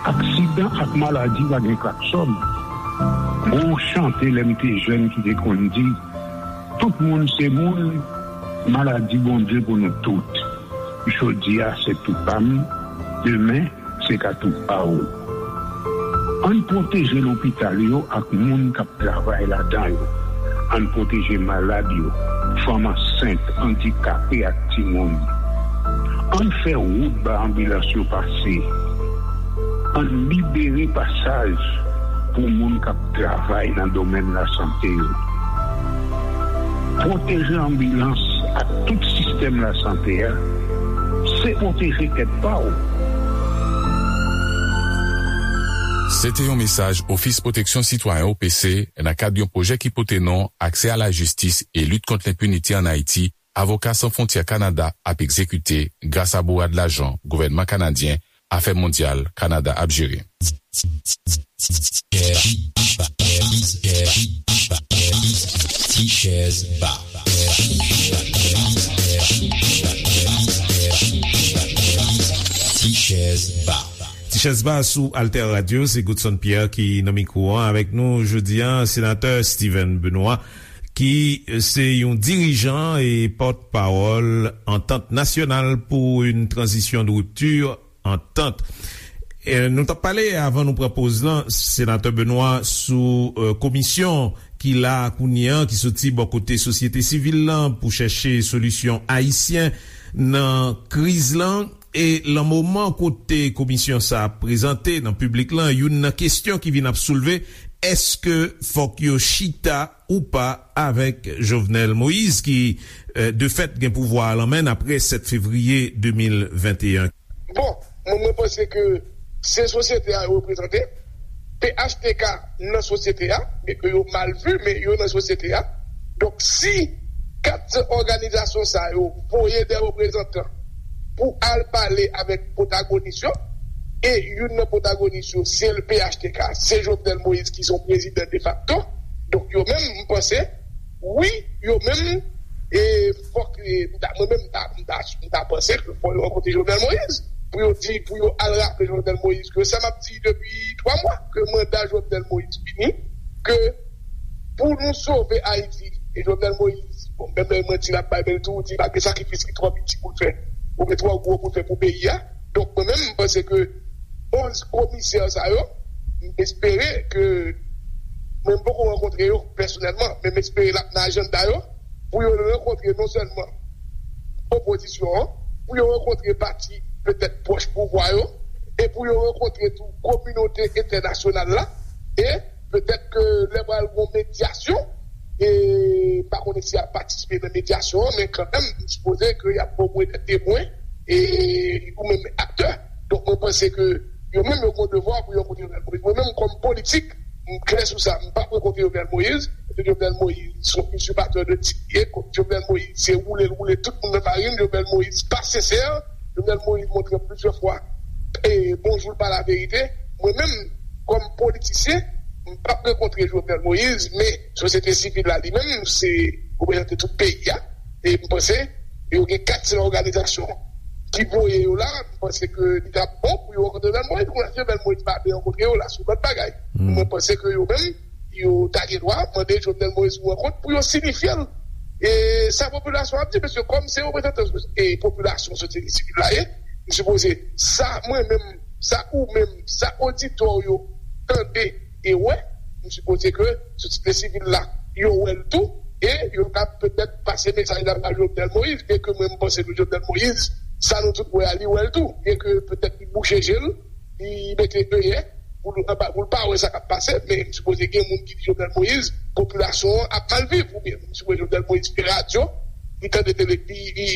aksidan ak maladi pa gen klaksòn. Gon chante lè m te jèn ki te konn di, tout moun se moun, maladi Bondye pou nou tout. Jodi a se tou pa m, demen se ka tou pa w. Ann pwoteje lopital yo ak moun k ap travay ladan yo. Ann pwoteje malad yo, fanm ansent, andikape ak timoun. Ann fè wout ba anbilans yo pase. Ann libere pasaj pou moun k ap travay nan domèn lasante yo. Pwoteje anbilans ak tout sistèm lasante a, se pwoteje tèt pa w. Se te yon mesaj Ofis Pwoteksyon Sitwayen, O P C, nan kad yon pwojè ki pote non Aksè a la jistis e lit kont lenpinite ann Ayiti, Avoka San Fwontyè Kanada ap egzekite gras a bourad lajan gouvènman kanadyen, Afè Mondyal Kanada ap jere. Ti chèz ba. Ti chèz ba. Ti chèz ba sou Alter Radio, se Godson Pierre ki nan mikwo an avèk nou jodi a, Senatè Steven Benoît, ki se yon dirijan e pòtpawòl Antant Nasyonal pou yon Tranzisyon de Ripti, Antant. E, nou t ap pale avan nou pran poz lan, Senatè Benoît, sou, e, komisyon ki la kounye a, ki soti bò kote sosyete sivil lan pou chèche solisyon ayisyen nan kriz lan. E lan moman kote komisyon sa ap prezante nan piblik lan, youn nan kesyon ki vin ap soulve, èske fòk yo chita ou pa avèk Jovenel Moïse, ki, e, de fèt, gen pouvwa a lan men n apre sèt fevriye de mil venteyen? Bon, mwen, mwen panse ke se sosyete a yo reprezante. P H T K nan sosyete a, byen ke yo mal vi, men yo nan sosyete a. Donk, si kat òganizasyon sa yo voye de reprezantan pou al pale avèk pwotagonis yo, e youn nan pwotagonis yo, se P H T K, se Jovenel Moïse ki se yon prezidan defakto. Donk, yo menm, m panse, wi, yo menm, e fòk, e, m ta, mwen menm, m ta, m ta, m ta panse ke fò yo rankontre Jovenel Moïse, pou yo di, pou yo al raple Jovenel Moïse ke sa m ap di depi twa mwa, ke manda Jovenel Moïse fini, ke pou nou sove Ayiti, e Jovenel Moïse, bon, menm lè mwen di l ap bay bèl tou, di pa gen sakrifis ki twò piti pou l fè, oubyen twò gwo pou l fè pou peyi a. Donk, mwen menm, m panse ke onz komisè sa yo, m espere ke, mwen m poko rankontre yo pèsonèlman, men m espere l ap nan ajanda yo, pou yo rankontre non sèlman opozisyon an, pou yo rankontre pati petèt pwòch pouvwa yo, e pou yo rankontre tou kominote entènasyonal la, e petèt ke lè pral gon medyasyon, e m pa konnen si y ap patisipe nan medyasyon an, men kanmenm, m sipoze ke y ap ba w mwen de temwen, e ou menm aktè. Donk, mwen panse ke yo menm yo gon devwa pou yo rankontre Jovenel Moïse. Mwen menm, kòm politik, m klè sou sa. M p ap rankontre Jovenel Moïse, paske Jovenel Moïse se yon izipatè de tit li ye. Jovenel Moïse se woule l woule tout moun nan farin. Jovenel Moïse pa sensè. Jovenel Moïse montre plizyè fwa, e, bonjou l pa laverite. Mwen menm, kòm politisyen, m p ap rankontre Jovenel Moïse, men sosyete sivil la li menm, se reprezante tout peyi a. E m panse yo gen kat sèl òganizasyon ki voye yo la. M panse ke li t ap bon pou yo rankontre Jovenel Moïse. Kounye a, si Jovenel Moïse pa vle rankontre yo, la se yon lòt bagay. Mwen panse ke yo menm, yo ta gen dwa mande Jovenel Moïse yon rankont pou yo siyifye l. E sa popilasyon ap di, paske kòm se reprezantan, e, popilasyon sosyete sivil la ye, m sipoze sa, mwen menm, sa ou menm, sa oditè w yo tande e wè, m sipoze ke sosyete sivil la, yo wè l tou, e yo ka petèt pase mesaj la ba Jovenel Moïse, byen ke mwen m panse ke Jovenel Moïse, sa nou tout wè a, li wè l tou, byen ke petèt li bouche je l, li mete deyè, pou l, pou l pa wè sa k ap pase, men m sipoze gen moun ki di Jovenel Moïse, popilasyon an ap mal viv, oubyen m sipoze Jovenel Moïse fè radyo, li tande tele, li, li,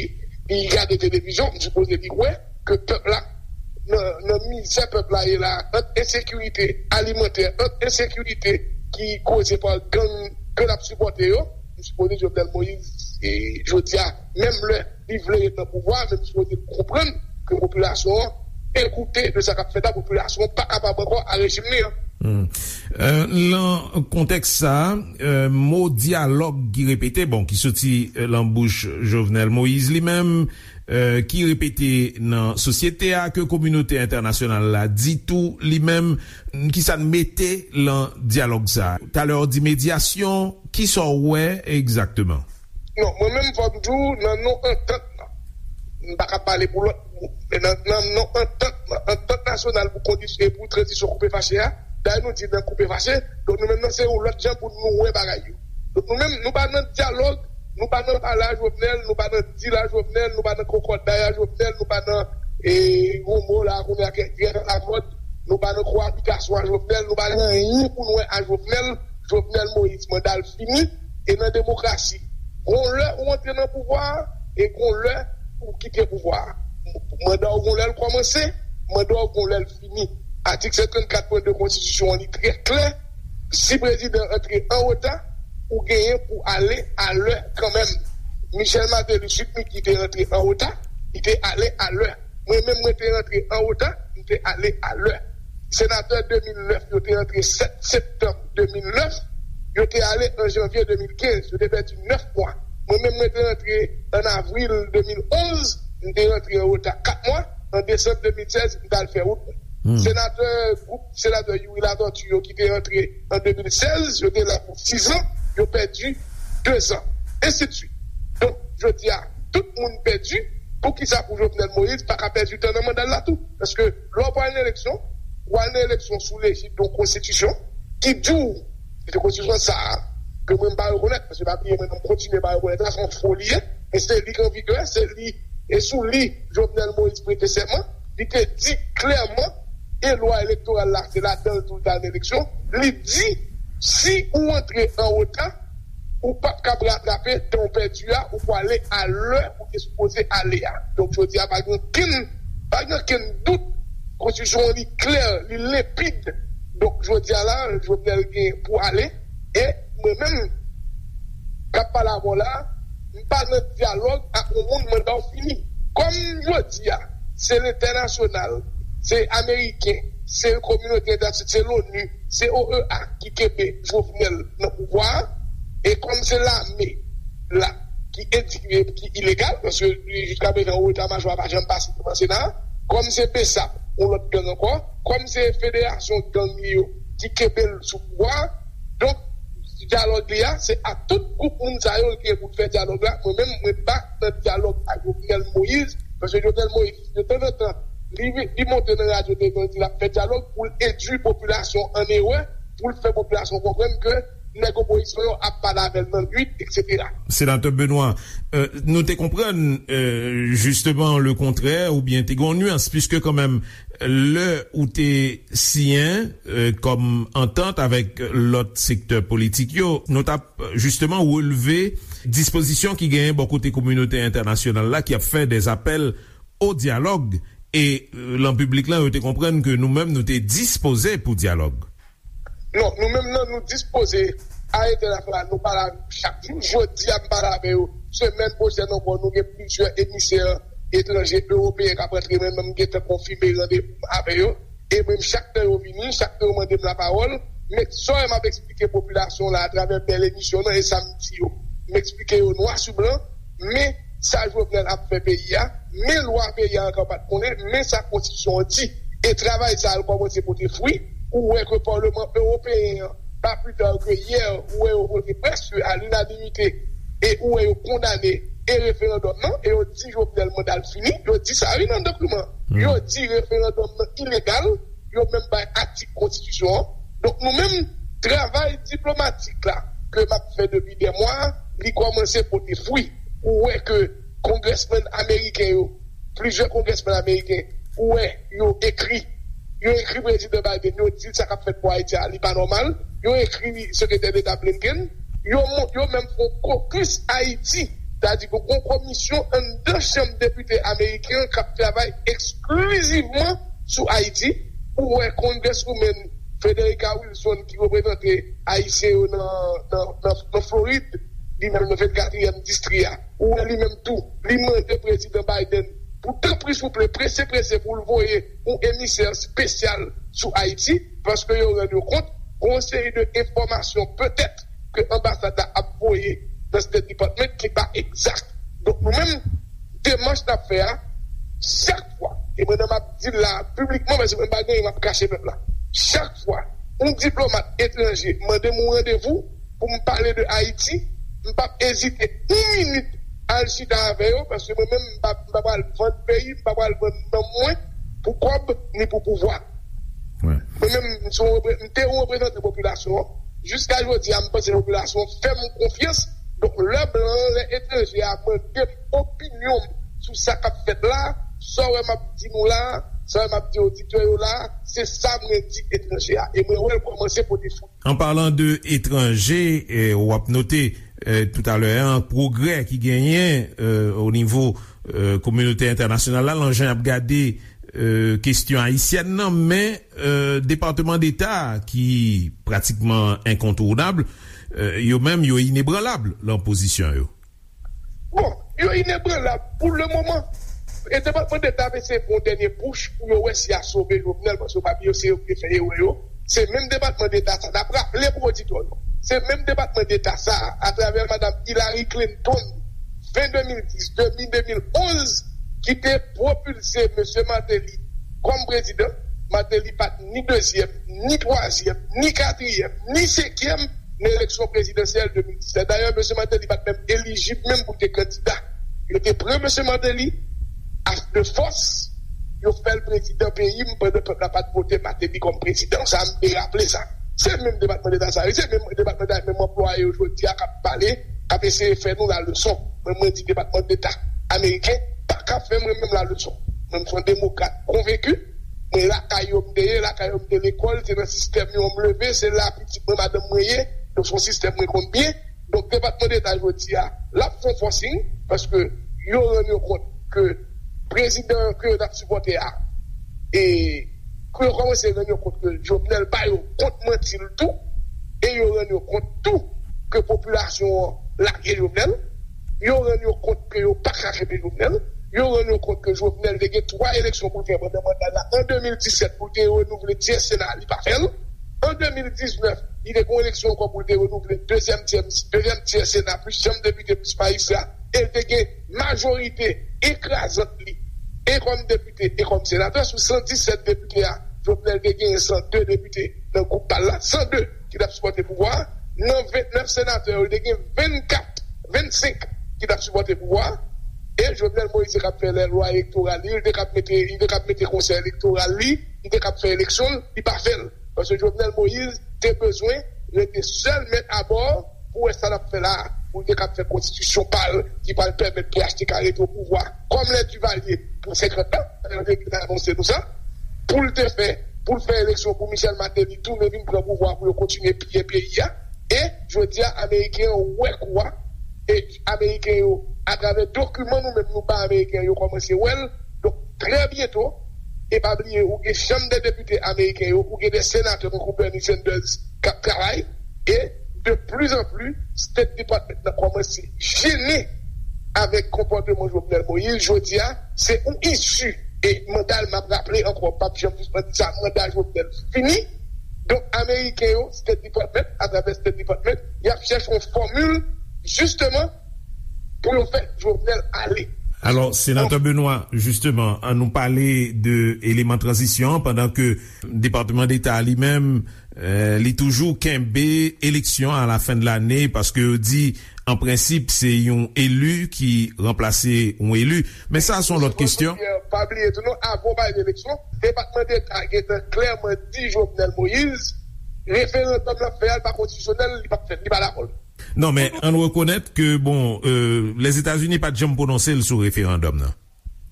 li gade televizyon, m sipoze li wè ke pèp la, nan, nan mizè pèp la ye la, ant ensekirite alimantè, ant ensekirite ki koze pa gang ke l ap sipòte yo, m sipoze Jovenel Moïse, e, jodi a, menm lè li vle ret nan pouvwa, men m sipoze l konprann ke popilasyon an degoute de sa k ap fèt la, popilasyon an pa kapab ankò a rejim li an. Hmm. Euh, nan kontèks sa, euh, mo dyalòg ki repete, bon, ki soti, euh, lan bouch Jovenel Moïse li menm, euh, ki repete nan sosyete a, ke kominote entènasyonal la di tou li menm, ki sa n mete lan dyalòg sa? Talè w di medyasyon, ki sa w wè egzakteman? Non, mwen menm fò m di w, nan non antant lan, m pa ka pale pou lòt moun, men nan, nan non antant lan, antant nasyonal pou kondisyon, pou tranzisyon koupe fache a, dayè nou di nan koupe fache, donk nou menm nan se yon lòt jan pou nou wè bagay yo. Donk nou menm, nou pa nan dyalòg, nou pa nan pale a Jovenel, nou pa nan dil a Jovenel, nou pa nan kòkòday a Jovenel, nou pa nan, e, yon mo la kounye a ki trè alamòd, nou pa nan koabitasyon a Jovenel, nou pa nan anyen pou nou wè a Jovenel, Jovenel Moïse, manda l fini, e nan demokrasi, gon lè ou antre nan pouvwa a, e gon lè ou kite pouvwa a. Manda w gon lè l kòmanse, manda w gon lè l fini. Atik senkann kat pwen de konstitisyon an li trè klè, si prezidan antre an reta, ou genyen pou ale alè kanmenm. Michel Martelly, Sweet Micky te antre an reta, li te ale alè. Mwen menm, mwen te antre an reta, m te ale alè. Senatè de mil nèf yo te antre sèt septanm de mil nèf, yo te ale an janvye de mil kenz, yo te pèdi nèf mwa. Mwen menm, mwen te antre an avril de mil onz, m te antre an reta kat mwa, an desanm de mil sèz, m t al fè wout mwen. Hmm. Senatè, gwoup senatè Youri Latortue yo ki te antre an de mil sèz, yo te la pou sis an, yo pèdi de zan, ensidsuit. Donk, jodi a, tout moun pèdi, poukisa pou Jovenel Moïse pa ka pèdi tan nan manda l la tou? Paske lè w pral nan eleksyon, w al nan eleksyon sou lejid yon konstitisyon ki di w, se konstitisyon sa a, ke mwen m pa rekonèt, paske pa bliye mwen menm m kontinye pa rekonèt la, se yon fo li ye, e se li k an vigè, se li, e sou li Jovenel Moïse prete sèman, li te di klèman, e lwa elektoral la, se ladan l tou l t al nan eleksyon, li di, si ou antre an reta, ou p ap kab ratrape tan w pèdi a, ou pwale a lè ou te sipoze ale a. Donk, jodi a, pa gen okenn, pa gen okenn dout, konstitisyon an li klè, li lenpid. Donk, jodi a la, Jovenel gen pou ale, e mwen menm, k ap pale avè w la, m pa nan dyalòg ak yon moun manda w fini. Kòm jodi a, se lentènasyonal, se ameriken, se kominote entènasyonal, se l'ONU, se O E A ki kenbe Jovenel nan pouvwa a, e kòm se lame la ki endikriye, ki ilegal, paske jiska prezan eta majò a pa janm pase devan Sena a, kòm se BSAP, yon lòt gang ankò, kòm se federasyon gang li yo ki kenbe l sou pouvwa a, donk, dyalòg li a, se ak tout gwoup moun sa yo l gen pou l fè dyalòg la. Mwen menm, mwen pa nan dyalòg ak Jovenel Moïse, paske Jovenel Moïse, de tanzantan, li, li monte nan radyo televizyon, li di l ap fè dyalòg pou l endui popilasyon an erè, pou l fè popilasyon konprann ke nèg opozisyon yo ap pale avè l nan nuit, etsetera. Senatè Benoît, euh, nou te konprann, euh, jisteman, le kontrè, oubyen te gen yon nyans, piske kanmenm, lè ou te siyen, euh, kòm antant avèk lòt sektè politik yo, nou t ap, euh, jisteman relve dispozisyon ki genyen bò kote kominote entènasyonal la ki ap fè dè apèl o dyalòg, e, euh, lan piblik lan, yo te konprann ke nou menm, nou te dispoze pou dyalòg. Non, nou menm nan, nou dispoze a entènasyonal, nou pale avè yo chak jou. Jodi a, m pale avè yo. Semèn pwochèn ankò, nou gen plizyè emisè etranje, ewopeyen k ap rantre, mwen menm, m gentan konfime randevou m avè yo. E mwen, chak tan yo vini, chak tan yo mande m lapawòl, m egzò-, m ap eksplike popilasyon la atravè bèl emisyon nan, e sa m di yo. M eksplike yo nwa sou blan, men sa Jovenel ap fè peyi a, men lwa peyi a ankò pa t konnen, men sa konstitisyon an di. E travay sa a l kòmanse pote fwi, ou wè ke Paleman Ewopeyen an, pa pli ta ke yè, ou wè yo vote prèske a linanimite, e ou wè yo kondane e referandòm nan, e yo di Jovenel manda l fini, yo di sa wi nan dokiman. Yo di referandòm nan ilegal, yo menm bay atik konstitisyon an. Donk nou menm, travay diplomatik la ke m ap fè depi dè mwa, li kòmanse pote fwi. Ou wè ke kongrèsmenn ameriken yo, plizyè kongrèsmenn ameriken, ou wè yo ekri, yo ekri prezidan Biden, yo di l sa k ap fèt pou Ayiti a, li pa nòmal. Yo ekri sekretè deta Blinken, yo, yo menm fè yon kokis Ayiti. Sètadi ke yon komisyon anndan chanm depite ameriken an k ap travay eksklizivman sou Ayiti. Ou wè Congresswoman Frederica Wilson ki reprezante Ayisyen yo nan, nan, nan, nan Florid, li menm nan vennkatriyèm distri a. Ou wè li menm tou, li mande prezidan Biden pou tanpri souple, prese prese pou l voye yon emisè espesyal sou Ayiti, paske yo rann yo kont gon seri de enfòmasyon petèt ke anbasad la ap voye nan State Department ki pa egzak. Donk nou menm, demach n ap fè a, chak fwa, e mwen menm m ap di l la piblikman, paske mwen pa gen anyen m ap kache pèp la. Chak fwa yon diplomat etranje mande m yon randevou pou m pale de Ayiti, m p ap ezite yon minit al chita avè yo, paske mwen menm m pa, m pa pral vann peyi, m pa pral vann nanm mwen pou kòb ni pou pouvwa. Mwen menm, m se yon repre- m te yon reprezantan popilasyon an. Jiska jodi a, m panse popilasyon an fè m konfyans. Donk, lè blan an, lè etranje a mande m opinyon m sou sa k ap fèt la, sa w wè m ap di nou la, sa w wè m ap di oditè yo la, se sa mwen di etranje a. E mwen wè l kòmanse pote fwi. An palan de etranje, eh, w ap note, eh, toutalè a, pwogrè ki genyen, eh, o nivo, eh, kominote entènasyonal la, lan jan y ap gade, eh, kesyon ayisyèn nan, men, eh, Depatman Deta ki pratikman enkontounab, eh, yo menm, yo inebranlab lan pozisyon yo. Bon, yo inebranlab pou le moman. E Depatman Deta ap eseye pran yon dènye pouch pou yo wè si y a sove Jovenel, paske yo pa bliye se yo ki te fè erè yo. Se menm Depatman Deta sa, n ap raple pou oditè yo. Se menm Depatman Deta sa, atravè Madam Hillary Clinton, ven de mil dis, de mil, de mil onz, ki te pwopilse Mesye Martelly kòm prezidan. Martelly pa t ni dezyèm, ni twazyèm, ni katriyèm, ni senkyèm nan eleksyon prezidansyèl de mil disèt. Dayè, Mesye Martelly pa t menm elijib menm pou l te kandida. Yo te pran Mesye Martelly a de fòs, yo fè l prezidan peyi m pandan pèp la pa t vote Martelly kòm prezidan. Sa, m te raple sa. Se menm Depatman Deta sa, wi, se menm Depatman Deta, menm anplwaye yo jodi a k ap pale, k ap eseye fè nou laleson. Mwen, mwen di Depatman Deta ameriken pa ka fè mwen menm laleson. Mwen, m se yon demokrat konvenki. Mwen, lakay yo m te ye, lakay yo m te lekòl, se nan sistèm yo m leve, se la pitit mwen, madanm mwen ye. Donk, se yon sistèm mwen konn byen. Donk, Depatman Deta jodi a, l ap fè yon fòsing, paske yo rann yo kont ke prezidan ke yo t ap sipòte a, e ke yo kòmanse rann yo kont ke Jovenel ba yo kont manti l tou, e yo rann yo kont tou ke popilasyon an lage Jovenel, yo rann yo kont ke yo pa ka kenbe Jovenel, yo rann yo kont ke Jovenel te gen twa eleksyon pou l fè pandan manda l la, an de mil disèt pou l te renouvle tyè Sena, li pa fè l. An de mil diznèf, li te gen yon eleksyon ankò pou l te renouvle dezyèm tyè, dezyèm tyè Sena, plis chanm depite, plis majistra, e l te gen majorite ekrazant li, e kòm depite, e kòm senatè. Sou san disèt depite a, Jovenel te genyen san de depite nan gwoup pa l la, san de ki t ap sipòte pouvwa a. Nan vennèf senatè yo, li te gen vennkat, vennsenk ki t ap sipòte pouvwa a. E Jovenel Moïse te k ap fè lè lwa elektoral li, li te k ap mete, li te k ap mete konsèy elektoral li, li te k ap fè eleksyon l, li pa fè l. Paske Jovenel Moïse te bezwen rete sèl mèt abò pou wè sa l ap fè la a, pou l te k ap fè konstitisyon pa l ki pral pèmèt P H T K rete o pouvwa kòm lè Duvalier pou senkant an, yo te anonse nou sa, pou l te fè, pou l fè eleksyon pou Michel Martelly tounen vin pran pouvwa pou yo kontinye piye peyi a. E jodi a, Ameriken yo wè kou a, e Ameriken yo, atravè dokiman nou menm nou bay Ameriken yo, kòmanse wè l. Donk, trè byento, e pa bliye, ou gen Chanm dè Depite ameriken yo, ou gen de senatè tankou Bernie Sanders k ap travay, e de plus en plus, State Department nan kòmanse jennen avèk konpòteman Jovenel Moïse. Jodi a, se yon isi, e manda l, m ap raple ankò, m p ap janm sispann di sa, manda Jovenel fini. Donk, Ameriken yo, State Department, atravè State Department, y ap chèche yon fòmil, jisteman, pou yo fè Jovenel ale. Alò, Senatè Benoît, jisteman, ann nou pale de eleman tranzisyon an, pandan ke Depatman Deta li menm, eh, li toujou kenbe eleksyon a la fen de lane, paske yo di, an prensip, se yon eli ki ranplase yon eli. Men sa, se yon lòt kesyon. Pa bliye tou, non, avan w pale de eleksyon, Depatman Deta gentan klèman di Jovenel Moïse, referandòm l ap fè a, li pa konstitisyonèl, li p ap fèt, li pa dakò. Non, men ann rekonèt ke, bon, euh, Lèzetazini pa t janm pwononse l sou referandòm nan.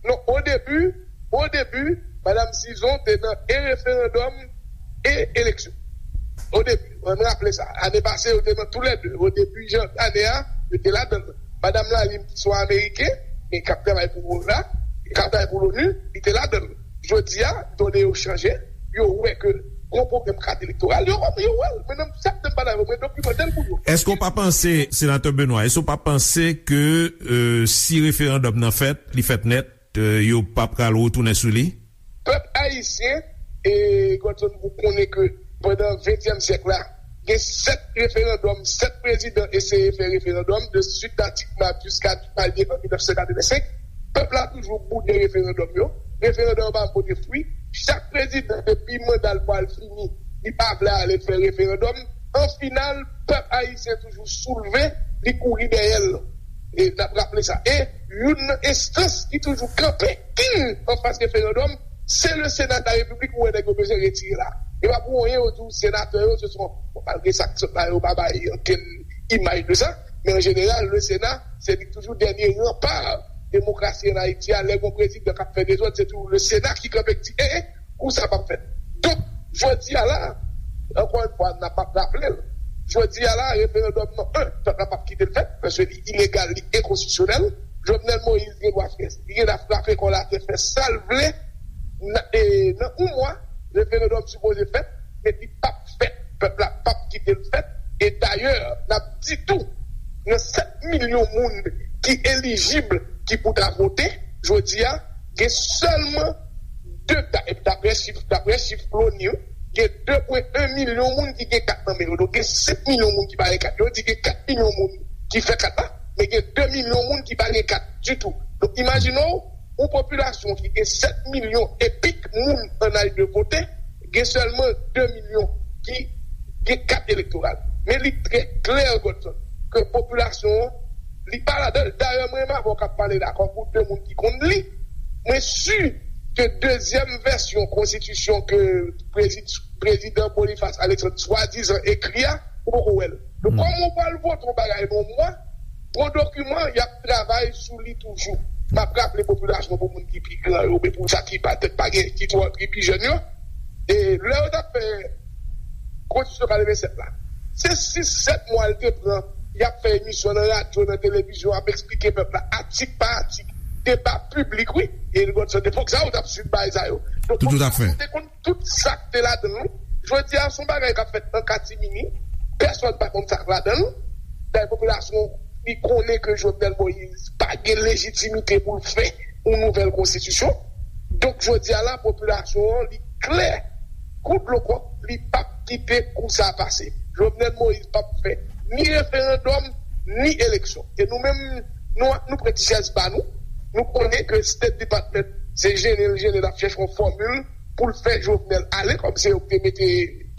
Non, o debi, o debi, Madam Cison te nan e referandòm e eleksyon. O debi, ann raple sa. Ane pase, yo te nan toulède. O debi jan ane a, yo te ladan l. Madam Lalime, ki se yon Ameriken, men k ap travay pou O N A, k ap travay pou l'ONU, li te ladan l. Jodi a, done yo chanje, yo wè ke gon pwoblèm kat elektoral, yo, yo wè l. Men nan chak tan m pale avè w, mwen dokimante l pou yo. Èske w pa panse, Senatè Benoît, èske w pa panse ke, euh, si referandòm nan fèt, li fèt nèt, euh, yo pa pral retounen sou li? Pèp ayisyen, e Godson, ou konnen ke pandan ventyèm syèk la, gen sèt referandòm, sèt prezidan eseye fè referandòm, de Sweet Datic Map jiska Duvalier an mil nèf san katrevensenk. Pèp la toujou boude referandòm yo. Referandòm yo pa pote fwi. Chak prezidan, depi manda l pral fini, li pa vle ale fè referandòm. An final, pèp ayisyen toujou soulve, li kouri dèyè l. E n ap raple sa. E youn nan enstans ki toujou kanpe kin anfas referandòm, se le Sena de la Repiblik, ou wè nèg yo bezwen retire la. E pa pou anyen yo di w senatè yo, se son, bon, malgre sa k sot la, yo pa bay ankenn imaj de sa, men an jeneral, le Sena, se li k toujou dènye ranpa demokrasi an Ayiti a. Lè gon prezidan k ap fè dezòd, se toujou le Sena ki kanpe, ki di, e, e, kou sa p ap fèt. Donk, jodi a la, ankò yon fwa, n ap ap raple l. Jodi a la, referandòm nan, en, pèp la p ap kite l fèt, paske li ilegal, li enkonstitisyonèl. Jovenel Moïse gen dwa fè, li gen dwa frape kò l atè, fè sa l vle. Nan, e, nan yon mwa, referandòm sipoze fèt, men li p ap fèt. Pèp la p ap kite l fèt. E dayè, n ap di tou, nan sèt milyon moun ki elijib, ki pou ta vote, jodi a, gen sèlman de, da-, daprè chif, daprè chif l'ONU, gen de pwen en milyon moun ki gen kat nan men yo. Donk, gen senk milyon moun ki pa gen kat. Yo di gen kat milyon moun ki fè kat la, men gen de milyon moun ki pa gen kat ditou. Donk, imajine w, yon popilasyon ki gen sèt milyon e pik moun an aj de vote, gen sèlman de milyon ki gen kat elektoral. Men li trè klè, Godson, ke popilasyon an, li pa ladan l. Dayè, mwen renmen avè w k ap pale la, kòm pou de moun ki konn li. Mwen si ke dezyèm vèsyon konstitisyon ke prezi-, prezidan Boniface Alexandre swadizan ekri a, ou poko wè l. Donk, kòman w pral vote yon bagay nan yon mwa, gon dokiman, y ap travay sou li toujou. M ap raple popilasyon, pou moun ki pi gran yo, oubyen pou sa ki patèt pa gen, ki twò, ki pi jèn yo, e lè yo t ap fè konstitisyon katrevennsèt la, se sis, sèt mwa l te pran, y ap fè emisyon nan radyo, nan televizyon, ap eksplike pèp la, atik pa atik, deba piblik, wi. E Godson, epòk sa yo t ap swiv bagay sa yo. Donk, popilasyon te konn tout sa k te ladan l. Jodi a, se yon bagay k ap fèt an katimini. Pèsonn pa konn sa k ladan l. Dayè, popilasyon, li konnen ke Jovenel Moïse pa gen lejitimite pou l fè yon nouvèl konstitisyon. Donk, jodi a la, popilasyon an, li klè kou dlo kòk, li p ap kite kou sa a pase. Jovenel Moïse p ap fè ni referandòm, ni eleksyon. E nou menm, nou, nou pran ti chèz pa nou. Nou konnen ke State Department, se jennen l jennen l ap chèche yon fòmil pou l fè Jovenel ale, kòm se yo ki te mete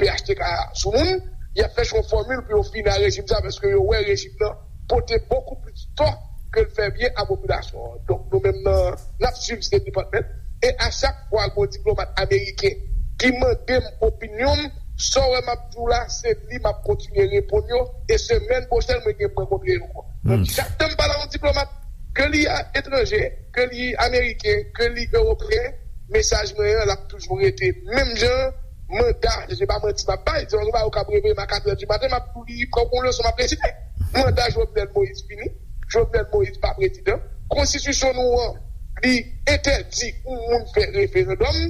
P H T K sou moun. Y ap chèche yon fòmil pou yo fini ak rejim sa, paske yo wè rejim nan pote bokou plis tò ke l fè byen a popilasyon an. Donk, nou menm nan, n ap swiv State Department. E a chak fwa gon diplomat ameriken ki mande m opinyon m, sa w wè m ap di w la, se li m ap kontinye reponn yo. E semèn pwochèn, mwen gen pou rankontre yo ankò. Donk, chak tan m pale a yon diplomat, ke li a etranje, ke li ameriken, ke li ewopeyen, mesaj mwen an, l ap toujou rete menm jan. Manda, se pa manti m ap bay, se yon bagay ou kab reveye m a katrè di maten, m ap tou li kòm yon leson m ap resite. Manda Jovenel Moïse fini. Jovenel Moïse pa prezidan. Konstitisyon nou an, li entèdi yon moun fè referandòm.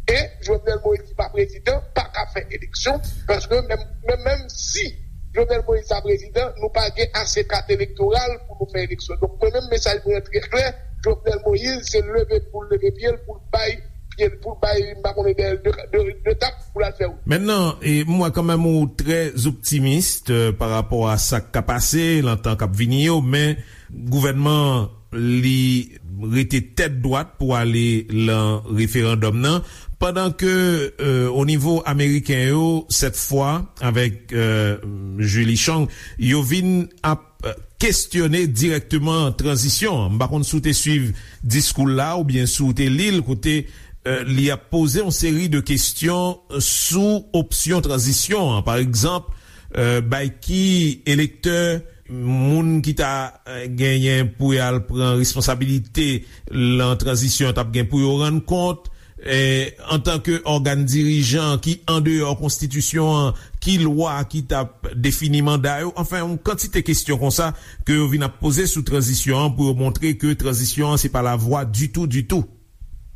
E Jovenel Moïse ki pa prezidan, pa ka fè eleksyon. Paske menm, menm, menm si Jovenel Moïse ta prezidan, nou pa gen ase kat elektoral pou nou fè eleksyon. Donk, mwen menm, mesaj mwen an trè klè. Jovenel Moïse, se leve pou l leve pye l, pou l bay pye l, pou l bay, m pa konnen, dèyè l de, de, de tap pou l al fè wout. Mentnan, e, m wè kanmenm ou trè optimis, euh, pa rapò a sa k ka pase nan tan k ap vini yo, men gouvènman an, li, rete tèt dwat pou ale lan referandòm nan, pandan ke, euh, o nivo ameriken yo, sèt fwa, avèk, euh, Julie Chong, yo vin ap, euh, kestyone dirèkteman tranzisyon an. M pa konn si w te swiv diskou l la oubyen si w te li l, kote, euh, li ap poze yon seri de kesyon sou opsyon tranzisyon an. Pa egzanp, euh, bay ki elektè, moun ki ta, euh, genyen pou y al pran responsabilite lan tranzisyon an t ap gen pou yo rann kont, eh, antanke ògàn dirijan ki andeyò konstitisyon an, ki lwa ki t ap defini manda yo. Anfen, yon kantite kesyon konsa ke yo vin ap poze sou tranzisyon an pou yo montre ke tranzisyon an se pa lavwa ditou, ditou.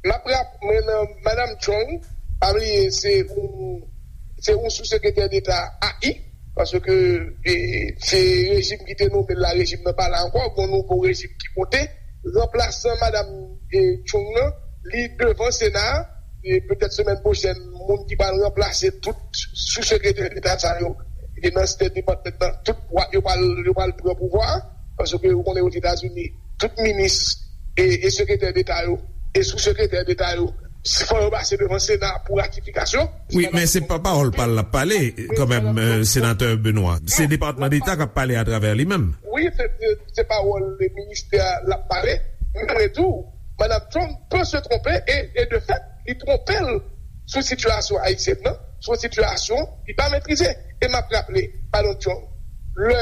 M ap rap, mwen nan Madam Chong, pa bliye, se yon, se yon sou sekretè deta A I, paske, e, se rejim ki te nonmen l la, rejim nan pa la ankò, gon nouvo rejim ki monte. Ranplasan Madam, e, Chong nan, li devan Sena a, e petèt semèn pwochèn, moun ki pral ranplase tout sou sekretè deta sa yo, ki te nan State Department nan, tout wa-, yo pral, yo pral pran pouvwa a, paske ou konnen Ozetazini, tout minis e, e sekretè deta yo, e sou sekretè deta yo, si fò yo pase devan Sena pou ratifikasyon. Wi, men se pa pawòl pa l l ap pale, kanmenm, euh, senatè Benoît. Se Depatman Deta k ap pale atravè li menm. Wi, se, se, se pawòl ministè a l ap pale. Men tou, Madam Trump peut se tromper, e, e de fèt, li twonpe l sou sitiyasyon ayisyèn nan, sou sitiyasyon li pa metrize. E m ap raple, Madam Trump, lè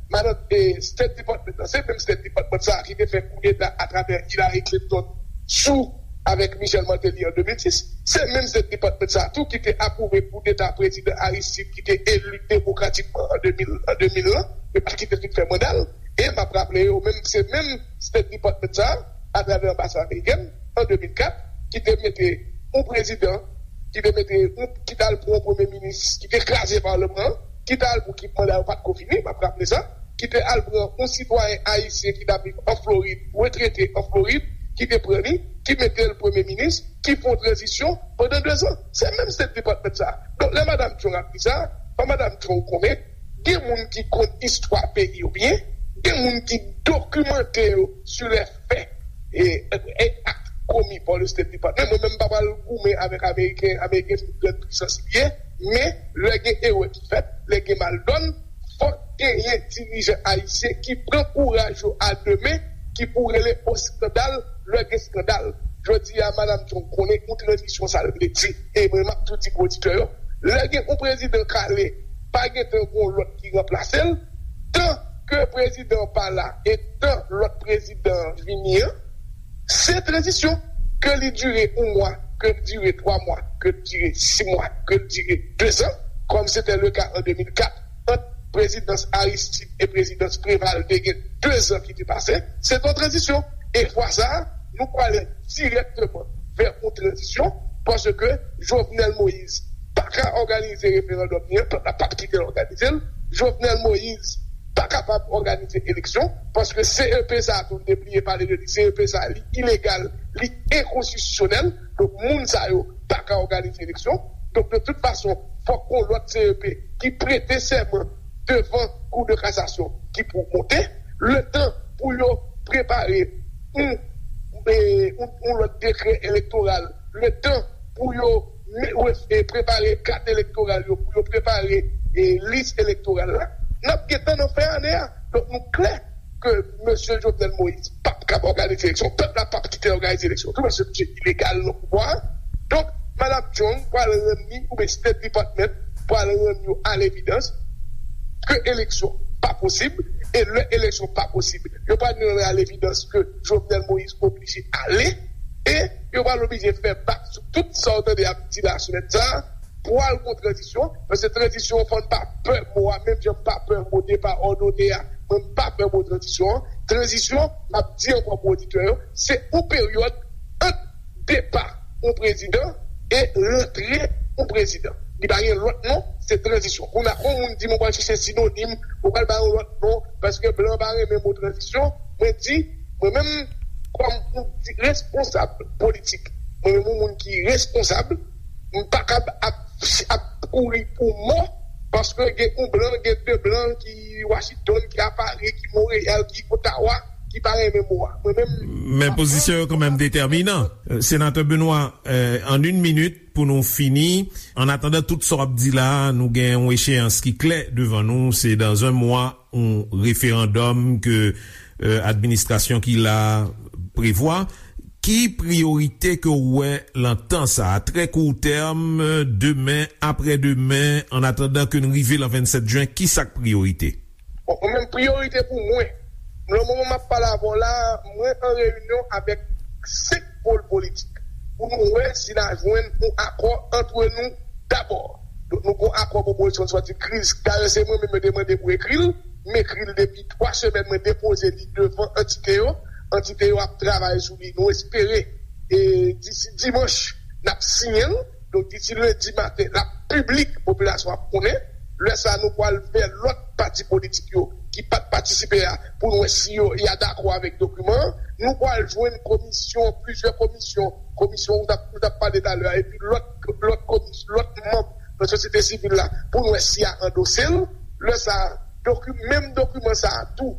Madan, e, State Department nan, se menm State Department sa a ki te fè koudeta atravè Hillary Clinton sou avèk Michel Martelly an de mil sis. Se menm State Department sa a tou ki te apwouve koudeta prezidan Aristide ki te eli demokratikman an de mil, an de mil lan. Yo pa kite l fin fè manda l. E m ap raple yo, menm, se menm State Department sa a, atravè anbasad amerikèn, an de mil kat, ki te mete yon prezidan ki te mete, ki t al pran yon premye minis ki te kraze palman an, ki t al pou ki manda yo pa t ko fini, m ap raple sa, ki te al pran yon sitwayen ayisyen ki t ap viv an Florid, retrete an Florid, ki te pran li, ki mete l premye minis, ki fè yon tranzisyon pandan dezan. Se menm State Department sa. Donk, lè Madam Chung ap di sa, fò Madam Chung konnen, gen moun ki konn istwa peyi yo byen, gen moun ki dokimante yo sou lè fè e, e, e ak komi pa le State Department. Mwen menm, m pa pral goumen avèk Ameriken, Ameriken se yon gran pwisans li ye, men lè gen erè ki fèt, lè gen maldòn, fòk genyen dirijan ayisyen ki pran kouraj yo a de men, ki pou rele o eskandal lè gen eskandal. Jodi a, Madam Chung konnen yon tranzisyon sa l vle di, e mwen m ap tou di pou oditè yo, lè gen yon prezidan k ale, pa gentan gen yon lòt ki ranplase l, tan ke prezidan an pa la e tan lòt prezidan an vini an, se tranzisyon, ke li dire yon mwa, ke li dire twa mwa, ke li dire sis mwa, ke li dire dezan, kòm se te le ka an de mil kat ant prezidans Aristide e prezidans Préval, te gen dezan ki te pase, se te yon tranzisyon. E fwa sa a, nou prale dirèkteman vè yon tranzisyon, paske Jovenel Moïse pa ka òganize referandòm li an, pèp la p ap kite l òganize l. Jovenel Moïse pa kapab òganize eleksyon, paske C E P sa a tou, n te bliye pale de li, C E P sa a, li ilegal, li enkonstitisyonèl. Donk, moun sa yo pa ka òganize eleksyon. Donk, de tout fason, fòk gon lòt C E P ki prete sèman devan Kou de Kasasyon ki pou monte, letan pou yo prepare yon, e, yon, yon lòt dekrè elektoral, letan pou yo me-, refe-, prepare kat elektoral yo, pou yo prepare, e, lis elektoral la, n ap gentan nan fen ane a. Donk, nou klè ke mesye Jovenel Moïse p ap kab òganize eleksyon. Pèp la p ap kite l òganize eleksyon tou, paske misye ilegal nan pouvwa a. Donk, Madam Chung pral rann li, oubyen State Department pral rann yo a levidans ke eleksyon pa posib, e lè eleksyon pa posib, yo pral rann a levidans ke Jovenel Moïse oblije ale, e yo pral oblije fè bak sou tout sa w tande y ap di la semèn sa a, pral gon tranzisyon, paske tranzisyon, fò n pa pè mo a, menm jan m pa pè mo depa òdone a, mwen m pa pè mo tranzisyon an. Tranzisyon, m ap di ankò pou oditè yo, se yon peryòd ant depa yon prezidan e rantre yon prezidan. Li pa gen lòt non, se tranzisyon. Kounye a, yon moun di m, ou pral chèche sinonim, ou pral ba yon lòt non, paske blan pa renmen mo tranzisyon. Mwen di, mwen menm, kòm yon di-, responsab politik, mwen menm yon moun ki responsab, m pa kab ap, ap kouri pou mò, paske gen yon blan, gen de blan ki Washington, ki a Paris, ki Montréal, ki Ottawa, ki pa renmen mo a. Mwen menm, men pozisyon yo kanmenm detèminan. Senatè Benoît, euh, an yon minit pou nou fini. An atandan tout sa w ap di la, nou gen yon echeyans ki klè devan nou, se dans un mois, yon referandòm ke, euh, administrasyon ki la prevwa. Ki priyorite ke w wè lan tan sa a, trè kou tèm, demen, aprè demen, an atandan ke n rive lan vennsèt jen, ki sa k priyorite? Bon, mwen menm, priyorite pou mwen, nan moman m ap pale avè w la, mwen an reyinyon avèk senk pòl politik pou nou wè si n a jwenn yon akò antre nou dabò. Donk, nou gen yon akò pou opozisyon sòti kriz. Dayè, se mwen menm yo te mande pou ekri l. M ekri l depi twa semèn, mwen depoze li devan antite yo. Antite yo ap travay sou li. Nou espere, e, disi dimanch, n ap siyen l. Donk, disi lendi maten, l ap piblik, popilasyon ap konnen. Lè sa a, nou pral fè lòt pati politik yo ki pa t patisipe a pou n wè si yo, y a dakò avèk dokiman an. Nou pral jwenn komisyon, plizyè komisyon, komisyon ou t ap, ou t ap pale talè a, epi lòt, lòt komis-, lòt manm nan sosyete sivil la pou n wè si y a andose l. Lè sa a, doki-, menm dokiman sa a tou,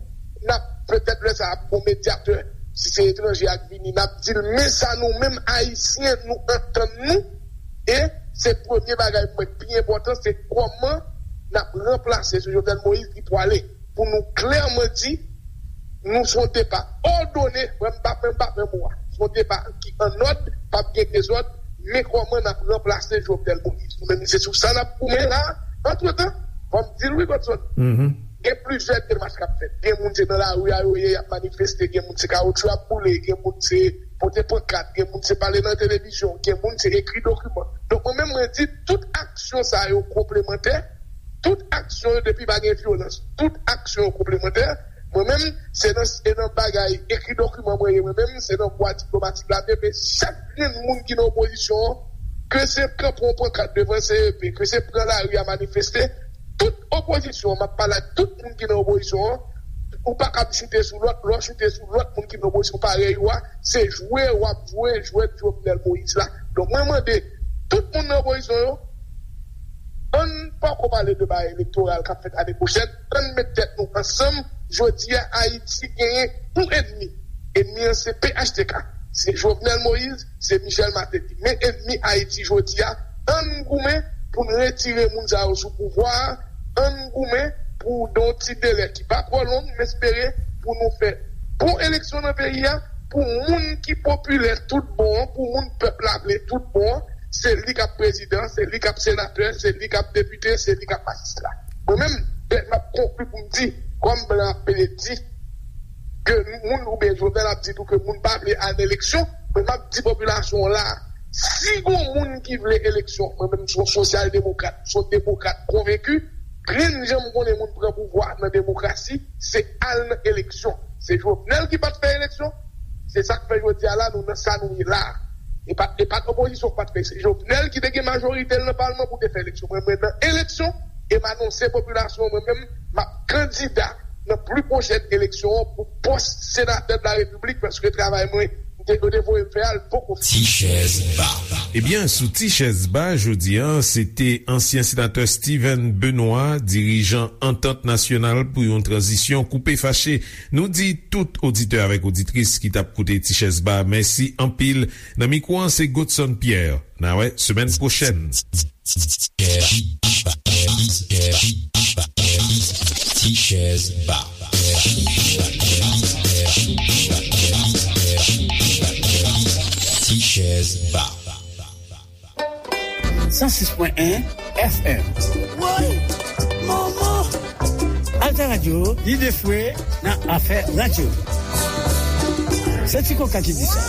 n ap petèt lè sa a ap gon medyatè, si se etranje a k vini, n ap di l, men sa nou menm Ayisyen, nou antann nou, e se premye bagay mwen ki pi enpòtan, se kòman n ap ranplase sou Jovenel Moïse ki pwale, pou nou klèman di, nou se yon depa òdone, mwen m pa, mwen m pa pran mo a. Se yon depa ki annòd, p ap gen dezòd, men kòman n ap ranplase Jovenel Moïse. Nou menm, se sou sa n ap goumen la. Antretan, fò m di l wi, Godson. Gen plizyè demach k ap fèt. Gen moun se nan lari a yo ye, y ap manifeste, gen moun se kawotchou y ap boule, gen moun se pote pankat, gen moun se pale nan televizyon, gen moun se ekri dokiman. Donk, mwen menm, mwen di, tout aksyon sa yo konplemantè, tout aksyon yo, depi pa gen vyolans, tout aksyon yo konplemantè. Mwen menm, se nan, se nan bagay ekri dokiman mwen ye, mwen menm, se nan vwa diplomatik la m ye, men chak grenn moun ki nan opozisyon an, ke se kanpe yon pankat devan C E P, ke se pran lari a manifeste, tout opozisyon an, m ap pale ak tout moun ki nan opozisyon an, ou pa kab choute sou lòt, lè w choute sou lòt moun ki nan opozisyon parèy ou a, se jwe w ap jwe jwèt Jovenel Moïse la. Donk, mwen mande tout moun nan opozisyon yo, ann poko pale de bagay elektoral k ap fèt ane pwochèn, ann met tèt nou ansanm. Jodi a, Ayiti genyen yon ènmi. Ènmi an se P H T K, se Jovenel Moïse, se Michel Martelly. Men ènmi Ayiti jodi a, ann goumen pou n retire moun sa yo sou pouvwa a, ann goumen pou, nan yon ti delè ki pa twò long, m espere pou nou fè bon eleksyon nan peyi a, pou moun ki popilè tout bon an, pou moun pèp la vle tout bon an, se li k ap prezidan, se li k ap senatè, se li k ap depite, se li k ap majistra. Mwen menm, m ap konkli pou m di, kòm blan ap pede di, ke moun, oubyen Jovenel ap di tou ke moun pa vle al nan eleksyon, men m ap di popilasyon an la, si gon moun ki vle eleksyon, mwen menm se yon sosyal demokrat, se yon demokrat konvenki, grenn jan m konnen moun pran pouvwa nan demokrasi, se al nan eleksyon. Se Jovenel ki pa t fè eleksyon, se sa k fè jodi a la nou nan sa nou ye la. E pa, e pa t opozisyon k pa t fè, se Jovenel ki te gen majorite l nan palman pou te fè eleksyon. Mwen, mwen nan eleksyon, e m anonse popilasyon an, mwen menm, m ap kandida nan pli pwochèn eleksyon an pou pòs senatè de la repiblik, paske travay mwen, m te, yo te voye m fè a, l poko fini. Ti chèz ba. Ebyen, sou Ti chèz ba, jodi a, se te ansyen senatè Steven Benoît, dirijan Antant Nasyonal pou yon Tranzisyon Koupe Fache. Nou di tout oditè avèk oditris ki t ap koute Ti chèz ba, mèsi anpil. Nan mikwo an, se Godson Pierre. N a wè semèn pwochèn. Ti chèz ba. Ti chèz ba. San sis pwen en F M. Woy! Manman! Alta Radio, lide fwe nan afè radyo. Se Ti Koka ki di sa.